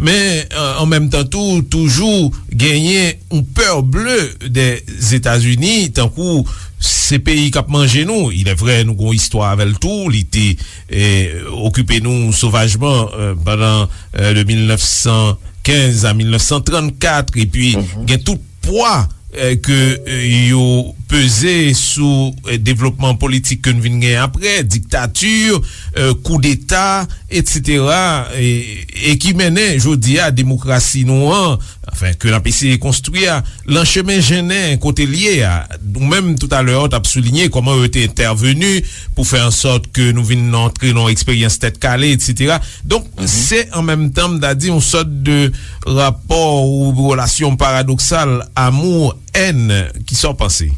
Men, euh, an menm tan tou, toujou genyen yon pè ble dè Etazini, tankou se peyi k ap manje nou. Il est vrai, nou gon istwa avè l tou. Li te, eh, okipe nou sovajman, eh, pandan, eh, de mil nèf san kenz a mil nèf san trannkat, epi gen tout pwa, eh, ke, eh, yo peze sou, eh, devlopman politik ke n vin gen apre, diktati, eh, koudeta, etsetera, e, e ki mennen jodi a demokrasi nou an, anfen, ke n ap eseye konstwi a, lan chemen jennen kote l ye a. Ou menm, toutalè, w t ap soulinye kòman yo te entèveni pou fè an sòt ke nou vin antre nan yon eksperyans tèt kale, etsetera. Donk, se an menm tan, m ta di, yon sòt de rapò ou relasyon paradoksal, amou, èn, ki sa w panse?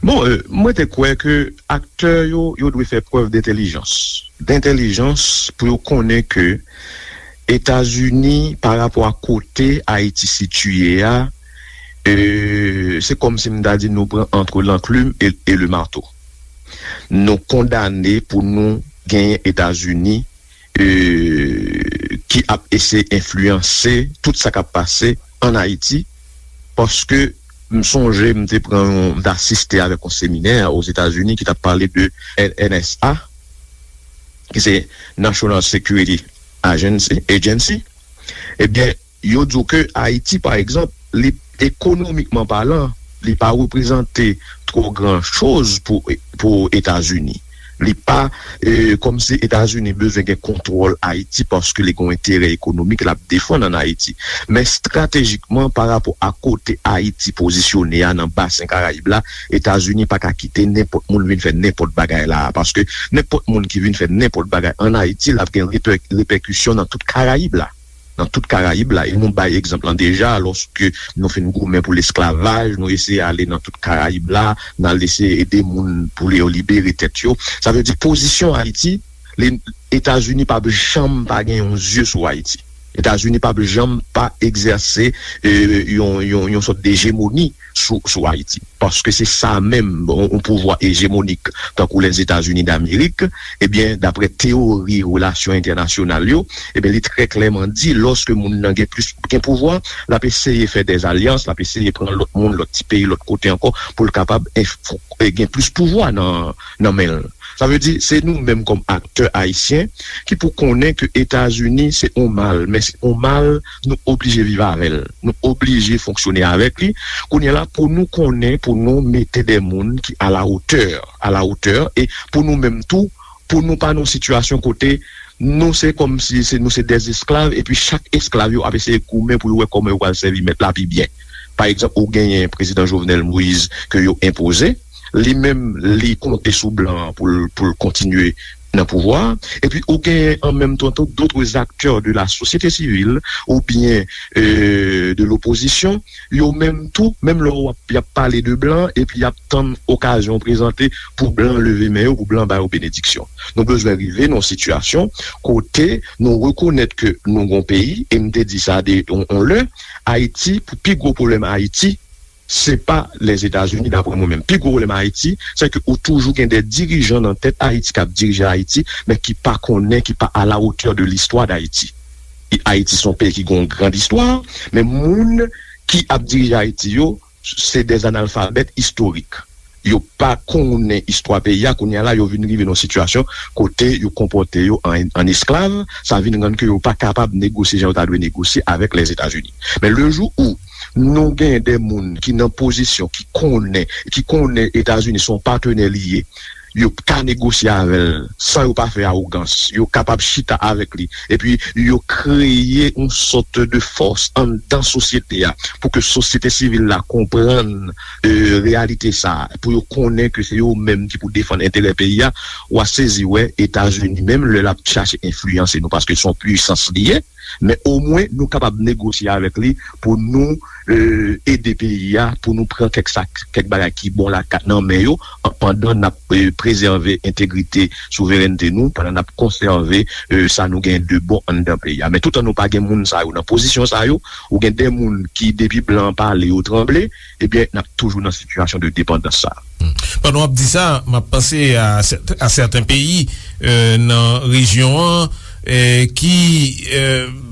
Bon, euh, mwen te kwè ke aktè yo, yo dwe fè prèv dentèlijans. Dentèlijans pou yo konnen ke Etazini, pa rapò a kote Ayiti sitiye a, euh, se kòmsi m ta di nou pran entre l'enclume et, et le marteau. Nou kondane pou nou genyen Etazini, euh, ki ap eseye enfliyanse tout sa k ap pase ann Ayiti, paske m sonje m te pran yon, m te asiste avèk yon seminè Ozetazini ki t ap pale de N S A, ki se National Security Agency, Agency. Ebyen, yo di w ke Ayiti, pa egzanp, li, ekonomikman palan, li pa reprezante twò gran choz pou, pou Etazini. Li pa, eh, kòmsi Etazini bezwen gen kontwòl Ayiti paske li gen yon enterè ekonomik l ap defann ann Ayiti. Men estratejikman, pa rapò a kote Ayiti pozisyone a nan basen Karayib la, Etazini pa ka kite nenpòt moun vin fè nenpòt bagay la a, paske nenpòt moun ki vin fè nenpòt bagay ann Ayiti, l ap gen repè-, repèkisyon nan tout Karayib la. Nan tout Karayib la. E nou bay egzanp lan deja, lòske nou fin goumen pou lesklavaj, nou eseye ale nan tout Karayib la, n al eseye ede moun pou yo libere tèt yo. Sa vle di pozisyon Ayiti, li, Etazini p ap janm pa gen yon zye sou Ayiti. Etazini p ap janm pa egzèse, eh, yon, yon, yon sòt de ejemoni sou, sou Ayiti. Paske se sa menm, yon, yon pouvwa ejemonik, tankou Lèzetazini Damerik, ebyen, daprè teyori relasyon entènasyonal yo, ebyen, li trè klèman di, lòske moun nan gen plis, gen pouvwa, l ap eseye fè dèzalyans, l ap eseye pran lòt moun, lòt ti peyi, lòt kote ankò, pou l kapab enf-, gen plis pouvwa nan, nan men l. Sa vle di, se nou menm kòm aktè ayisyen ki pou konnen ke Etazini se yon mal, men se yon mal nou oblije viv avè l, nou oblije fonksyone avèk li. Kounye a la, pou nou konnen, pou nou mete de moun ki a la otè, a la otè, e pou nou menm tou, pou nou pa nan yon sitiyasyon kote nou se kòmsi se, nou se dè esklav, epi chak esklav yo ap eseye goumen pou yo wè kòman yo pral sèvi mèt la pi byen. Pa egzanp, ou genyen prezidan Jovenel Moïse ke yo enpoze, li menm, li konte sou blan an pou l, pou l kontinye nan pouvwa a. Epi ou genyen an menm tan tou d'autres acteurs de la société civile oubyen, euh, de l'opposition, yo menm tou, menm lè w ap, y ap pale de blan, epi y ap tann okazyon prezante pou blan leve men yo, pou blan ba yo benediksyon. Nou bezwen rive nan yon sitiyasyon kote nou rekonèt ke nou gon peyi, e m te di sa de, on, on lè, Ayiti, pou pi gwo pwoblèm Ayiti, se pa Lèzetazini, daprè mwen menm. Pi gwo pwoblèm Ayiti, se ke ou toujou gen de dirijan nan tèt Ayiti k ap dirije Ayiti, men ki pa konnen, ki pa à la hauteur de l'histoire d'Haïti. E Ayiti se yon peyi ki gen yon grand istwa, men moun ki ap dirije Ayiti yo, se de analfabèt istorik. Yo pa konnen istwa peyi a, kounye a la, yo vin rive nan yon sitiyasyon kote yo konpòte yo an, an esklav, sa vin rann ke yo pa kapab negosye jan yo ta dwe negosye avèk Lèzetazini. Men le jou où nou gen de moun ki nan pozisyon, ki konnen, ki konnen Etazini se yon patnè li ye, yo ka negosye avè l san yo pa fè awogans. Yo kapab chita avèk li. Epi, yo kreye yon sòt de fòs anndan sosyete a pou ke sosyete sivil la konprann, e, reyalite sa a, pou yo konnen ke se yo menm ki pou defann enterè peyi a. W a sezi wè Etazini, menm lè l ap chache enfliyanse nou, paske se yon pwisans li ye, men omwen nou kapab negosye avèk li pou nou, e, ede peyi a, pou nou pran kèk sa, kèk bagay ki bon la nan men yo, pandan n ap, e, prezève entegrite, souverènte nou, pandan n ap konsève, e, sa nou gen de bon anndan peyi a. Men toutan nou pa gen moun sa yo nan pozisyon sa yo, ou gen de moun ki depi blan an pale yo tranble, ebyen n ap toujou nan sitiyasyon de depandans sa a. Pandan w ap di sa, m ap panse a sèt- a sèten peyi, e, nan rejyon an, e, ki, e,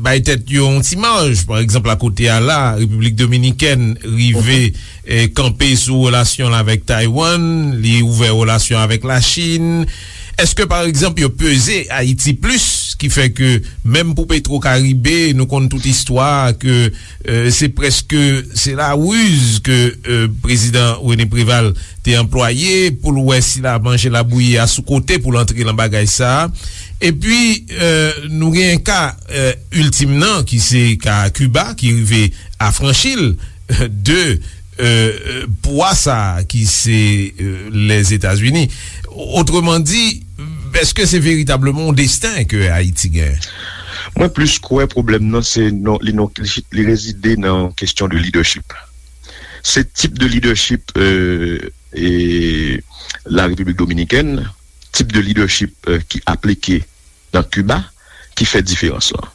bay tèt yo yon ti maj. Pa egzanp, akote a la, Repiblik Dominikèn rive, e, kanpe sou relasyon l avèk Taiwan, li ouvè relasyon avèk Lachin. Èske, pa egzanp, yo peze Ayiti plis, ki fè ke menm pou Petro Karibe, nou konn tout istwa ke, e, se prèske, se la riz ke, e, prezidan René Préval te anplwaye pou l wè si l a manje labouyi a sou kote pou l antre nan bagay sa a. Epi, e, nou gen ka, e, iltim nan, ki se ka Kiba, ki rive afranchi l de, e, e, pwa sa a ki se, e, Lèzetazini. Otreman di, èske se veritableman yon desten ke Ayiti gen? Mwen plis kwè pwoblèm nan se non, li non, li rezide nan kesyon de lidèchip. Se tip de lidèchip, e, e, la Repiblik Dominikèn, tip de lidèchip, e, ki aplike nan Kiba ki fè diferans lan.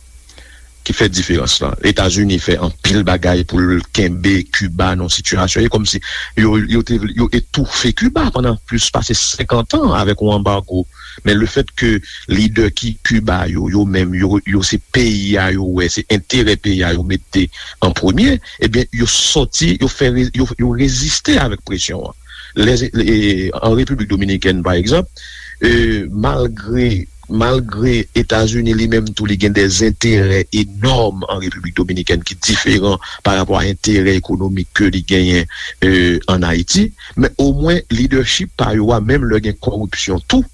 Ki fè diferans lan. Etazini fè anpil bagay pou l kenbe Kiba nan sitiyasyon. E kòmsi yo, yo te, yo etoufe Kiba pandan plis pase senkant an avèk yon anbago. Men lefèt ke lidè ki Kiba yo, yo menm, yo, yo se peyi a yo wè, se enterè peyi a yo mete an premye, ebyen, yo sòti, yo fè re- yo, yo reziste avèk presyon an. Lè, e, an Repiblik Dominikèn, pa egzanp, e, malgre, malgre Etazini li menm tou, li gen de enterè enòm an Repiblik Dominikèn ki diferan pa rapò a enterè ekonomik ke li genyen, e, ann Ayiti, men omwen lidèchip pa yo a, menm lè gen kòripsyon tou,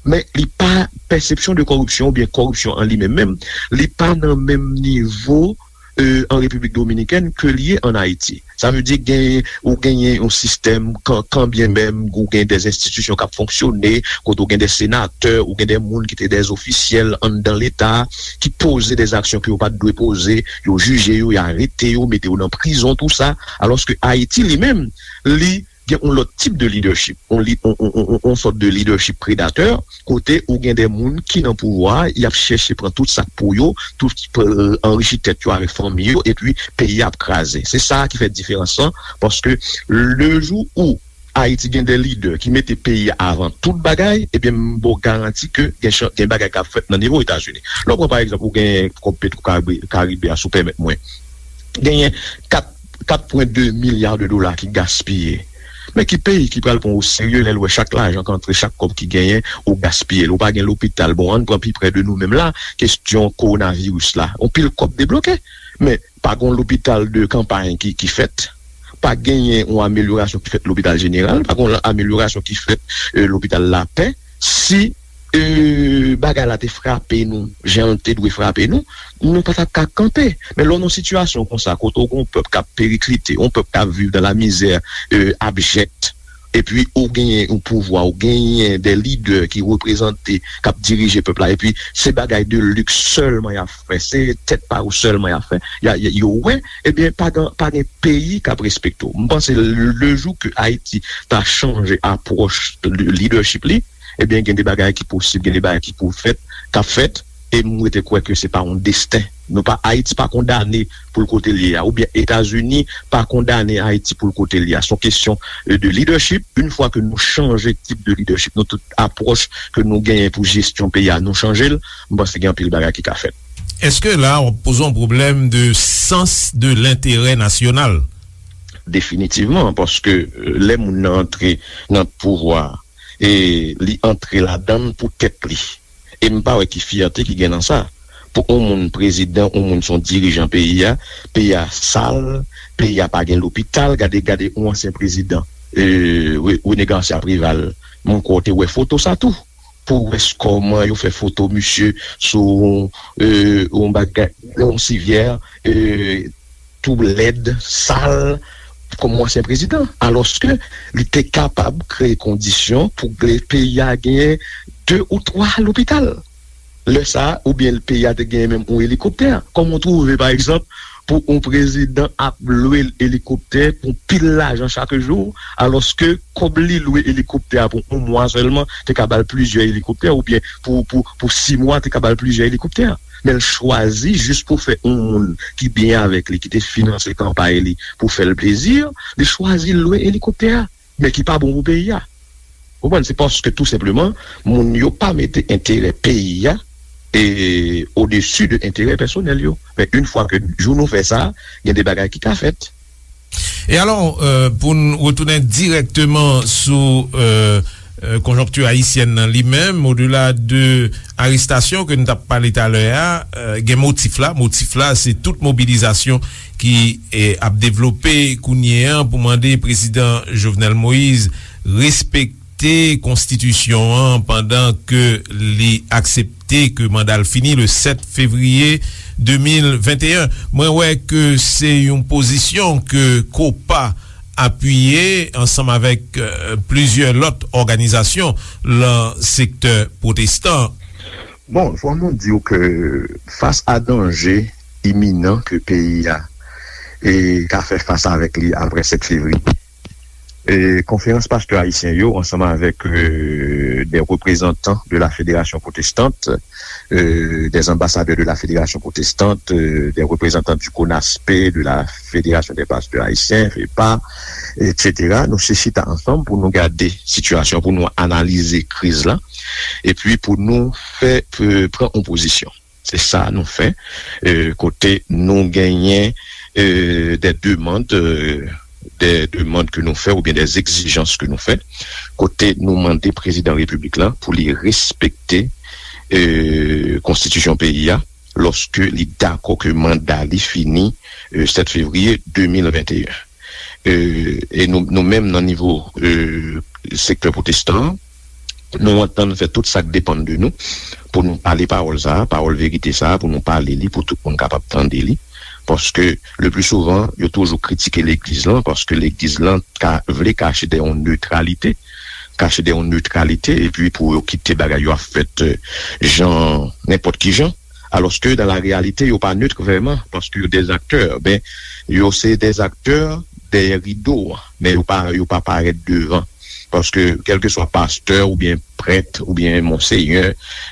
men li pa, pèsepsyon de kòripsyon oubyen kòripsyon an li menm menm, li pa nan menm nivo, e, an Repiblik Dominikèn ke li ye ann Ayiti. Sa vle di gen, ou genyen yon sistèm, kan, kanbyen menm ou gen de enstitisyon k ap fonksyone, kote ou gen de senatè, ou gen de moun ki te de ofisyèl anndan Leta, ki poze de aksyon ke yo pa t dwe poze, yo jije yo, y arete yo, mete yo nan prizon, tou sa. Alòske Ayiti, li menm, li gen yon lòt tip de lidèchip, yon li- yon, yon, yon, yon sòt de lidèchip predatè, kote ou gen de moun ki nan pouvwa, y ap chèche pran tout sa k pou yo, tout, e, anrichi tèt yo avèk fanmi yo, epi peyi a ap kraze. Se sa ki fè diferans lan, paske le jou ou Ayiti gen de lidè ki mete peyi a avan tout bagay, ebyen, m ba w garanti ke gen chan- gen bagay k ap fèt nan nivo Etazini. Lè w pran, pa egzanp, ou gen kòb Petro Karibe, Karibe a, si w pèmèt mwen. Genyen kat, kat pwen de milya de dola ki gaspiye. Men ki peyi ki pral pran w oserye lè l wè chak lajan k antre, chak kòb ki genyen, ou gaspiye l? Ou pa gen lopital. Bon, ann pran pi prè de nou menm la, kesyon kowonaviris la. Yon pil kòb debloke, men pa gen lopital de kanpay ki, ki fèt. Pa genyen yon amelyorasyon ki fèt lopital jeneral, pa gen yon amelyorasyon ki fèt, e, lopital Lapè. Si, e, bagay la te frape nou jan l te dwe frape nou, nou pa t ap ka kanpe. Men lè w nan yon sitiyasyon konsa, kote w gen yon pèp k ap periklite, yon pèp k ap viv dans la misère, e, abject, epi ou genyen yon pouvwa, ou genyen de lidè ki reprezante, k ap dirije pèp la, epi se bagay de liks sèlman y ap fè, se tèt pa yo sèlman y ap fè, y a- y a- yo wè, ebyen, pa gen, pa gen peyi k ap respekte w. M panse le jou ke Ayiti ta chanje apwòch lidèchip li, ebyen, gen de bagay ki posib, gen de bagay ki pou fèt, k ap fèt, e m rete kwè ke se pa yon desten. Nou pa, Ayiti pa kondane pou l kote l ye a, oubyen Etazini pa kondane Ayiti pou l kote l ye a. Se yon kesyon, e, de lidèchip. Yon fwa ke nou chanje tip de lidèchip, nou tout apwòch ke nou genyen pou jesyon peyi a, nou chanje l, m panse gen anpil bagay ki ka fèt. Èske la w ap poze yon pwoblèm de sans de lenterè nasyonal? Definitivman, paske, e, lè moun nan antre nan pouvwa, e li antre ladan l pou tèt li. E m pa wè ki fyète ki gen nan sa. Pou yon moun prezidan, yon moun se yon dirijan peyi a, peyi a sal, peyi a pa gen lopital, gade, gade yon ansyen prezidan, e, Re- René Garcia Préval, Mwen kwè w te wè foto sa tou. Pou w wè kòman yo fè foto misye sou yon bagay, yon sivyè tou lèd, sal, kòm yon ansyen prezidan. Alòske li te kapab kreye kondisyon pou peyi a genyen de ou twa lopital. Lè sa a, oubyen peyi a te genyen menm yon elikoptè. Kòman w twouve, pa egzanp, pou yon prezidan ap lwe elikoptè pou pil lajan chak jou, alòske kòb li lwe elikoptè a pou yon mwa sèlman te ka ba l plizyè elikoptè, oubyen pou, pou, pou sis mwa te ka ba l plizyè elikoptè. Men l chwazi jis pou fè yon moun ki byen avèk li, ki te finanse kanpay li pou fè l plezi, li chwazi lwe elikoptè a, men ki pa bon pou peyi a. Ou konprann? Se paske tou senpleman, moun yo pa mete enterè peyi a e odesi de enterè pèsonèl yo. Men yon fwa ke jou nou fè sa, gen de bagay ki ka fèt. E alò, euh, pou n retounen dirèkteman sou euh, euh, konjonkti ayisyèn nan li menm, odela de arestasyon ke n t ap pale talè a, euh, gen motif la. Motif la, se tout mobilizasyon ki eh, ap devlope kounye a pou mande prezidan Jovenel Moïse respekte konstitisyon an pandan ke li aksepte ke manda l fini le sèt fevriye de mil venteyen. Mwen wè ke se yon pozisyon ke kopa apiye ansanm avèk euh, plizyè lòt òganizasyon lan sektè pwotestan. Bon, fò nou di w ke fas a danje iminan ke peyi a e ka fè fas avèk li apre sèt fevriye, e konferans pastè ayisyen yo ansanm avèk euh, des représentants de la fédération protestante, euh, des ambassadeurs de la fédération protestante, euh, des représentants du CONASPE, de la fédération des pasteurs haïtiens, FEPA, et cetera. Nou se chita ansanm pou nou gade sitiyasyon, pou nou analize kriz la, epi pou nou fè euh, pran yon pozisyon. Se sa nou fè, euh, kote nou genyen euh, des demandes, euh, des demandes ke nou fè oubyen des exigences ke nou fè, kote nou mande prezidan repiblik la pou li respekte euh, konstitisyon peyi a, lòske li dakò ke manda li fini euh, sèt fevriye de mil venteyen. Euh, e nou, nou menm nan nivo euh, sektè pwotestan, nou antann fè tout sa k depann de nou pou nou pale pawòl sa a, pawòl verite sa a, pou nou pale li, pou tout moun kapab tande li. Paske le pli souvan, yo toujou kritike legliz lan, paske legliz lan ka vle kache dèyè yon netralite, kache dèyè yon netralite, epi pou yo kite bagay yo ap fèt euh, jan, nenpòt ki jan. Alòske dan la reyalite, yo pa net vrèman, paske yo des acteurs, ben, yo se des acteurs dèyè rido a, men yo pa, yo pa parèt devan. Paske kèlkeswa pastè oubyen prèt oubyen monsenyè,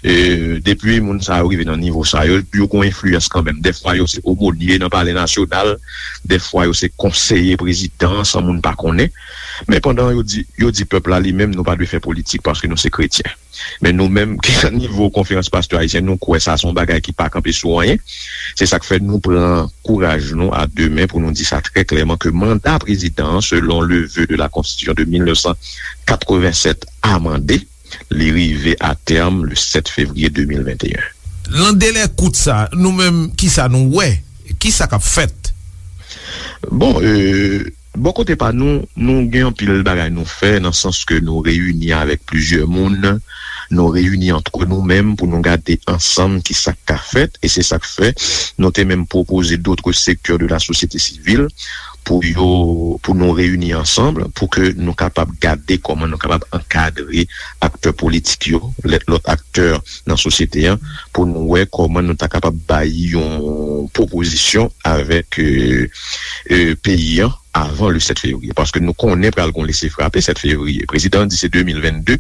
euh, depi moun sa yo rive nan nivo sa yo, yo gon enfliyans kanmenm. Dèfwa yo se omonye nan palè nasyonal, dèfwa yo se konseye prezidan san moun pa konnen. Men pandan yo di, yo di pèp la li menm nou pa dwe fè politik paske nou se kretyen. Men nou menm ki nan nivo konferans pastè ayisyen, nou kwè sa se yon bagay ki pa kanpe sou anyen. Se sa k fè nou pran kouraj nou a de men pou nou di sa trè klèman ke manda prezidan an, selon le vœu de la constitution de mil nèf san katrevennsèt amande, li rive a tèm le sèt fevriye de mil venteyen. Lan delè kout sa, nou menm, kisa nou wè? Kisa k ap fèt? Bon, euh, bò kote pa nou, nou gen anpil bagay nou fè, nan sans ke nou reyini avèk plizyè moun, nou reyini antre nou menm pou nou gade ansanm kisa k ka fèt, e se sa k fè nou te menm pwopoze d'autres secteurs de la société civile pou yo, pou nou reyini ansanm, pou ke nou kapab gade kòman nou kapab ankadre aktè politik yo, lè, lòt aktè nan sosyete an, pou nou wè kòman nou ta kapab bay yon pwopozisyon avèk euh, euh, peyi an avan le sèt fevriye. Paske nou konnen pral gon lese frape sèt fevriye. Prezidan an di se de mil vennde,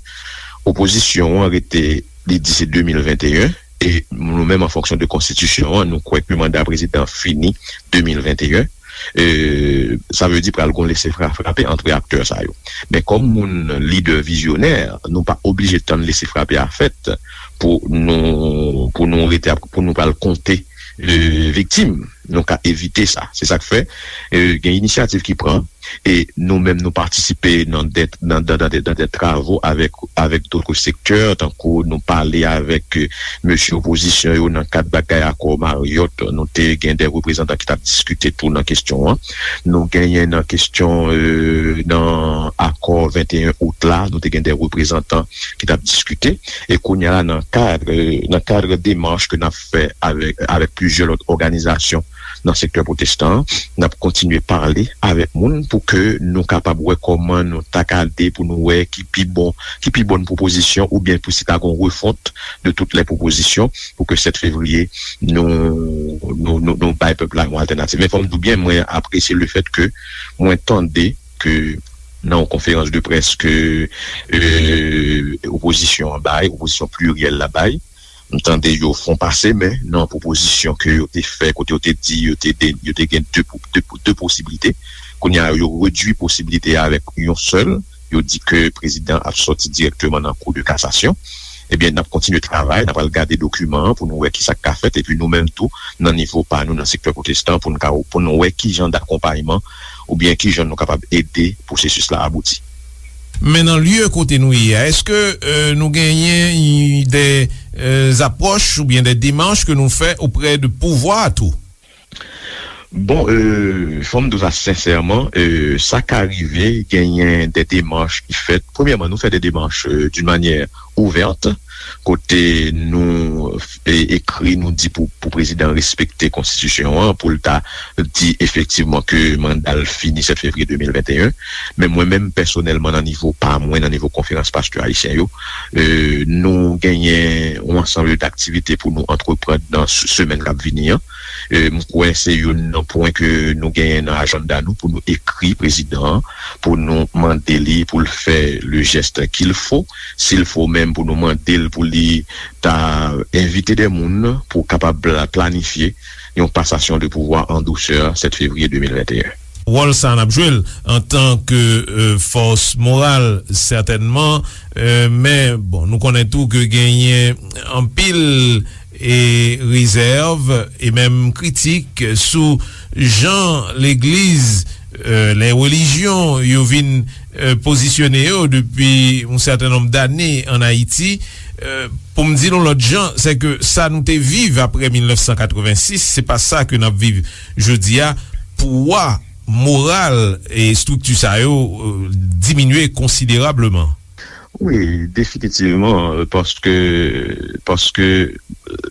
opozisyon an rete, li di se de mil venteyen, e nou menm an fonksyon de konstitisyon an, nou kwè ke manda prezidan fini de mil venteyen. Euh, sa vle di pral gon lese fra- frape antre aktè sa yo. Men kòm moun lidè vizyonè, nou pa oblije tann lese frape a fèt pou nou, pou nou rete ap, pou nou pral konte euh, viktim. nou ka evite sa. Se sa k fè, e, gen inisyativ ki pran, e nou menm nou patisipe nan de, nan, nan, nan de, nan de travo avèk, avèk dòt sektè, tankou nou pale avèk, e, mesye opozisyon yo nan kad bagay akò Marriott, nou te gen de reprezantan ki t ap diskite tou nan kesyon an. Nou genyen nan kesyon, e, nan akò venteyen out la, nou te gen de reprezantan ki t ap diskite. E kounye a la, nan kad, nan kad demach ke n ap fè avèk, avèk plizyè lòt òganizasyon nan sektè pwotestan an, n ap kontinye pale avèk moun pou ke nou kapab wè kòman nou ta ka de pou nou wè ki pi bon, ki pi bòn pwopozisyon oubyen pou si ta gon refont de tout lè pwopozisyon pou ke sèt fevriye nou, nou, nou, nou bay pèp la yon altènativ. Men fò m di w byen, mwen apresye le fèt ke mwen tande ke nan yon konferans de près ke, e, opozisyon an bay, opozisyon pliryèl la bay, m tande yo fon pase men nan pwopozisyon ke yo te fè, kote yo te di yo te, de, yo te gen de, de, de posiblite. Kounye a, yo redui posiblite a avèk yon sèl. Yo di ke prezidan ap sòti dirèkteman nan Cour de cassation. Ebyen, n ap kontinye travay, n ap al gade dokiman an pou nou wè ki sa k ka fèt, epi nou menm tou, nan nivo pa nou, nan sektè pwotestan, pou nou ka, pou nou wè ki jan dakonpayman oubyen ki jan nou kapab ede pwosesis la abouti. Men nan lye kote nou ye a, èske, e, nou genyen de, e, apwòch oubyen de demach ke nou fè oprè de pouvwa a tou? Bon, e, fò m di w sa sensèman, e, sa ka rive, genyen de demach ki fèt. Premyèman, nou fè de demach, e, d'une manière ouverte, kote nou, e, ekri, nou di pou, pou prezidan respekte konstitisyon an, pou l ta di efektivman ke manda l fini sèt fevriye de mil venteyen. Men mwen menm, pèsonèlman, nan nivo pa mwen, nan nivo konferans pastè ayisyen yo, e, nou genyen yon ansanm de aktivite pou nou antreprann nan s-, semèn k ap vini an. E, m kwè se youn nan pwen ke nou genyen nan ajanda nou pou nou ekri prezidan an, pou nou mande li pou l fè le geste qu'il faut, s'il faut menm pou nou mande l pou li ta envite de moun pou kapab pla-, planifye yon pasasyon de pouvwa an dousè sèt fevriye de mil venteyen. Wòl sa n ap jwe l antanke, e, fòs moral, sètènman, e, men, bon, nou konnen tou ke genyen anpil e rezèv e menm kritik sou jan legliz, e, lè relijyon yo vin, e, pozisyone yo depi yon sèten nonb dane ann Ayiti. E, pou m di l yon lòt jan, se ke sa nou te viv apre mil nèf san katrevensis, se pa sa ke n ap viv jodi a. Pouwa moral e estrikti sa yo, e, diminye konsiderableman. Wi, definitivman, paske, paske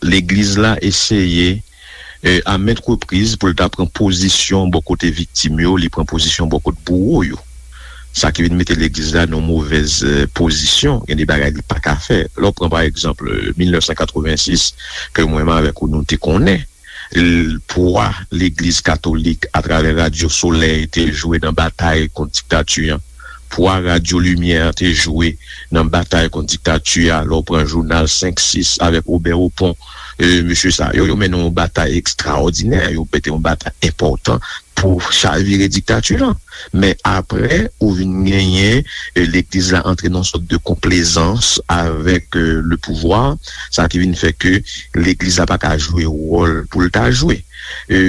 legliz la eseye, e, a ment repriz pou l ta pran pozisyon bò kote viktim yo, li pran pozisyon bò kote bouwo yo. Sa ki vin mete legliz la nan movèz, e, pozisyon, gen de bagay li pa ka fè. Lè w pran, pa egzanp, e, mil nèf san katrevensis, ke mwen menm avèk ou nou te konnen, l-, pwa legliz katolik atravè Radyo Solèy te jwe nan batay kont diktati an, pwa Radyo Limyè te jwe nan batay kont diktati a, lè w pran jounal senk sis avèk Obè Opon, e, mesye sa yo, yo mennen yon batay ekstraòdinè, yo mete yon batay enpòtan pou chavire diktati lan. Men apre, ou vin genyen, e, legliz la antre nan yon sòt de konplezans avèk, e, le pouvwa, sa ki vin fè ke legliz la pa ka jwe wòl pou l ta jwe. E,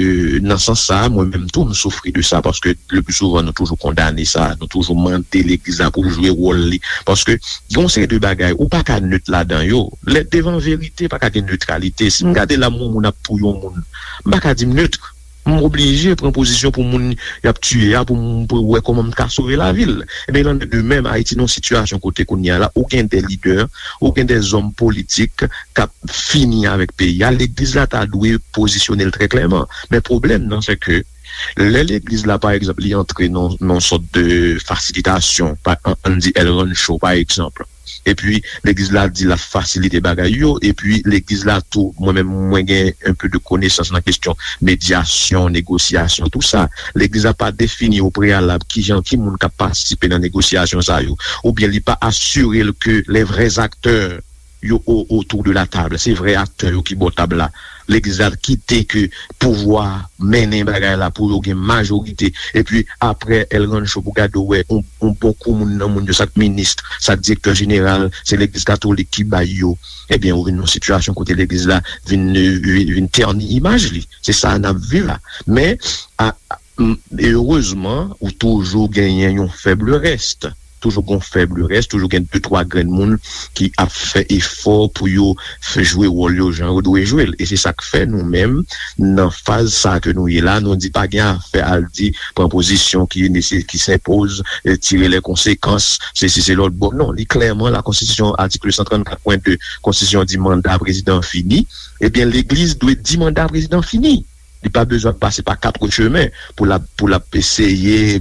nan sans sa, mwen menm tou, m soufri de sa, paske le pli souvan, nou toujou kondane sa, nou toujou mande legliz la pou l jwe wòl li, paske gen yon seri de bagay, ou pa ka net ladan yo. Lè devan verite, pa ka gen netralite. Si m gade la, yon moun ap touye yon moun, m pa ka di m net. M oblije pran pozisyon pou moun y ap tiye a, pou m, pou wè kòman m ka sove lavi l. Ebyen, il en est de même, Ayiti nan yon sitiyasyon kote kounye a la, ou gen de lidè, ou gen de zòm politik k ap fini avèk peyi a. Legliz la ta dwe pozisyone l trè klèman. Men pwoblèm nan, se ke lè legliz la, pa egzanp, li antre nan, nan yon sòt de fasilitasyon, pa, an, ann di El Rancho, pa egzanp, epi legliz la di l ap fasilite bagay yo, epi legliz la tou, mwen menm, mwen gen un peu de konesans nan kesyon medyasyon, negosyasyon, tou sa. Legliz la pa defini o preyalab kijan, ki moun k ap patisipe nan negosyasyon sa yo, oubyen li pa asire l ke les vrais acteurs yo o-, autour de la table, se vrè aktè yo ki bò tab la, Legliz la kite ke pouvwa mennen bagay la pou yo gen majorite. Epi apre, L. Rancho, pou gade w wè yon, yon bon kou moun nan moun yo, sa k minis, sa k direktè jeneral, se legliz katolik ki bay yo. Ebyen, ou vin nan yon sitiyasyon kote legliz la vin, vin, vin tèni imaj li. Se sa n ap viv la. Men, a, a, m, erezman, ou toujou genyen yon fèb rès. Toujou gen fèb rès, toujou gen de twa grenn moun ki ap fè efò pou yo fè jwe wòl yo jan yo dwe jwe l. E se sa k fè nou menm, nan faz sa ke nou ye la, nou di pa gen afè al di pran pozisyon ki nese-, ki senpoz, e tire lè konsekans, se si se lòt bò. Non, li klèman la konstitisyon, atik san trannkat pwen de konstitisyon di manda prezidan fini. Ebyen, legliz dwe di manda prezidan fini. Li pa bezwen pase pa kat chemen pou l ap, pou l ap eseye,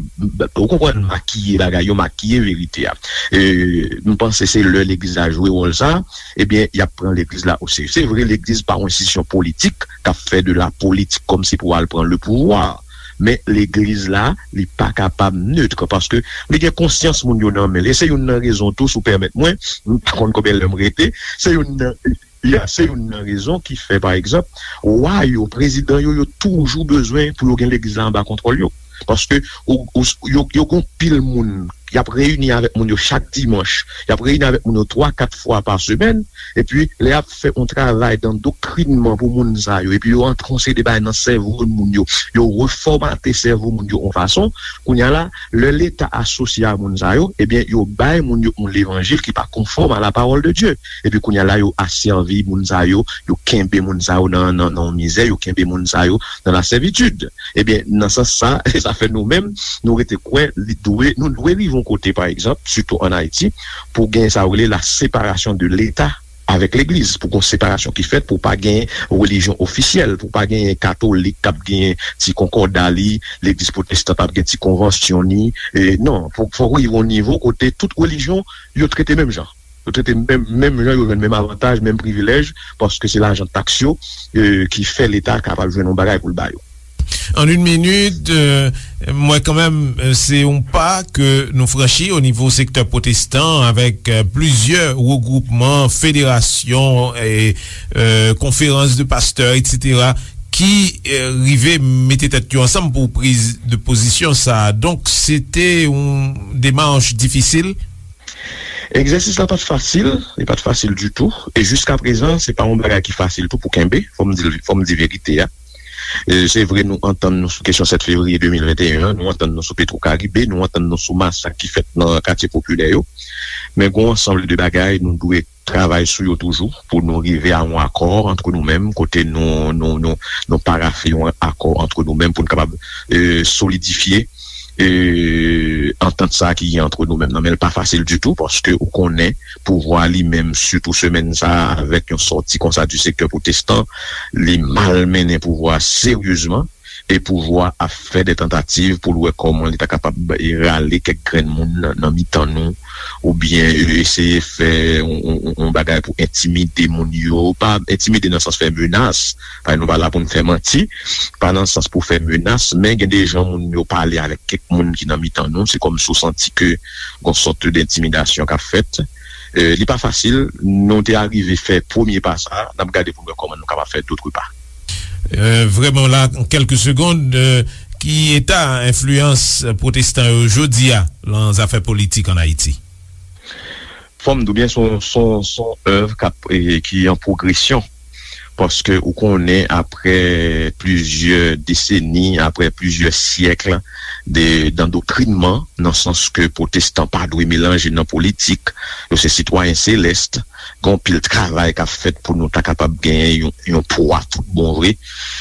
ou konprann, makiye bagay yo, makiye verite a. E, m panse se lè legliz la jwe wòl sa, ebyen, y ap pran legliz la oserye. Se vre, legliz pa yon enstitisyon politik k ap fè de la politik kòmsi pou al pran le pouvwa. Men legliz la, li pa kapab nèt, paske li gen konsyans moun yo nan men l. E se youn nan rezon tou, si w pèmèt mwen, m pa konn konbyen lè m rete, se youn nan Ya, se youn nan rezon ki fè, pa egzanp, wa yo, prezidan yo, yo toujou bezwen pou yo gen legliz la anba kontwòl yo. Paske ou, ou, yo, yo gon pil moun, y ap reyini avèk moun yo chak dimanch, y ap reyini avèk moun yo twa, kat fwa pa semèn, epi lè y ap fè yon travay dan doktrinman pou moun sa yo, epi yo antre yon seri de bagay nan sèvo moun yo, yo refòmate sèvo moun yo yon fason, kounye a la, lè Leta asosye a moun sa yo, ebyen, yo bay moun yo yon levanjil ki pa konfòm a la parole de Dieu. Epi kounye a la, yo asèvi moun sa yo, yo kenbe moun sa yo nan, nan, nan mizè, yo kenbe moun sa yo nan lasèvitid. Ebyen, nan sans sa, sa fè nou menm, nou rete kwè, li dwe, nou dwe rive yon kote, pa egzanp, sitou ann Ayiti, pou gen sa yo rele la séparation de l'État avec l'Église, pou gen yon separasyon ki fèt, pou pa gen relijyon ofisyèl, pou pa gen katolik k ap gen ti konkòda li, legliz pwotestan p ap gen ti konvansyon ni. E, non, fò, fò rive yon nivo kote tout relijyon yo trete menm jan. Yo trete menm, menm jan, yo jwenn menm avantaj, menm privilèj, paske se lajan taks yo, e, ki fè Leta kapab jwenn yon bagay pou l ba yo. An yon minit, e, m wè kanmenm, e, se yon pa ke nou franchi o nivo sektè pwotestan avèk, e, plizyè regwoupman, federasyon, e, e, konferans de pastè, etsetera, ki, e, rive mete tèt yo ansanm pou priz de pozisyon sa a. Donk, se te yon demach difisil. Egzèsis la pa t fasil, li pa t fasil ditou, e jiskaprezan, se pa yon bagay ki fasil tou pou kenbe, fò m di, fò m di verite a. E, se vre, nou antann nou sou kesyon sèt fevriye de mil venteyen an, nou antann nou sou Petro Caribe, nou antann nou sou masak ki fèt nan katye popilè yo, men gen yon ansanm de bagay nou dwe travay sou yo toujou pou nou rive a yon akò antre nou menm, kote nou, nou, nou, nou parafe yon akò antre nou menm pou nou kapab, e, solidifye, e, antant sa ki gen antre nou menm nan. Men l pa fasil ditou, paske ou konnen pouvwa li menm, sitou semèn sa a, avèk yon sòti konsa di sektè pwotestan, li malmennen pouvwa seryezman. E pouvwa ap fè de tantativ pou l wè kòman li ta kapab rale kèk grenn moun nan, nan mitan nou, oubyen eseye fè yon, yon, yon, yon bagay pou entimide moun yo, pa entimide nan sans fè menas, paske nou pa la pou n fè manti, pa nan sans pou fè menas, men gen de jan moun yo pale avèk kèk moun ki nan mitan nou, se kòmsi w santi ke gon sòt de entimidasyon k ap fèt. E, li pa fasil, nou te arive fè premye pa sa a, n ap gade pou n wè kòman nou kapab fè dòt pa. E, vrèman la, an kèlke segond, e, ki eta enfliyans pwotestan yo jodi a nan zafè politik ann Ayiti? Fò m di w byen, se yon, se yon, se yon èv k ap, e, ki an pwogresyon. Paske ou konnen, apre plizyè deseni, apre plizyè syèk de, dandoktrinman, nan sans ke pwotestan pa dwe melanje nan politik, yo se sitwayen selès, gen anpil travay k ap fèt pou nou ta kapab genyen yon, yon pwa tout bon vre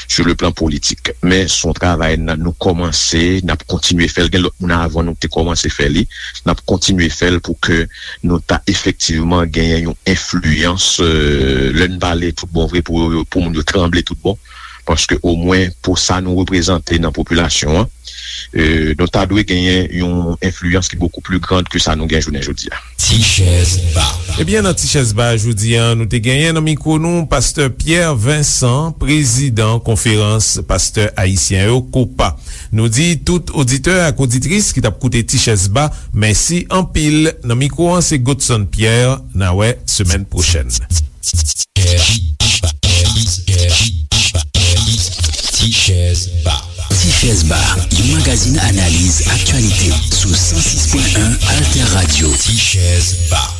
sou le plan politik. Men se yon travay n a, nou kòmanse, n ap kontinye fè l. Gen lòt moun avan nou ki te kòmanse fè li. N ap kontinye fè l pou ke nou ta efektivman genyen yon enfliyans, e, lè n pale tout bon vre, pou, pou moun yo tranble tout bon. Paske omwen pou sa nou reprezante nan popilasyon an, e, nou ta dwe genyen yon enfliyans ki bokou pli grand ke sa nou gen jounen jodi a. Ti Chèz Ba. Ebyen, nan Ti Chèz Ba jodi a, nou te genyen nan mikwo nou Pastè Pierre Vincent, prezidan Konferans Pastè Ayisyen yo, kopa. Nou di tout oditè ak oditris ki t ap koute Ti Chèz Ba, mèsi anpil. Nan mikwo an, se Godson Pierre. N a wè semèn pwochèn. Chèz Ba. Ti Chèz Ba, yon magazin analiz aktyalite sou san sis pwen en Alter Radio. Ti Chèz Ba.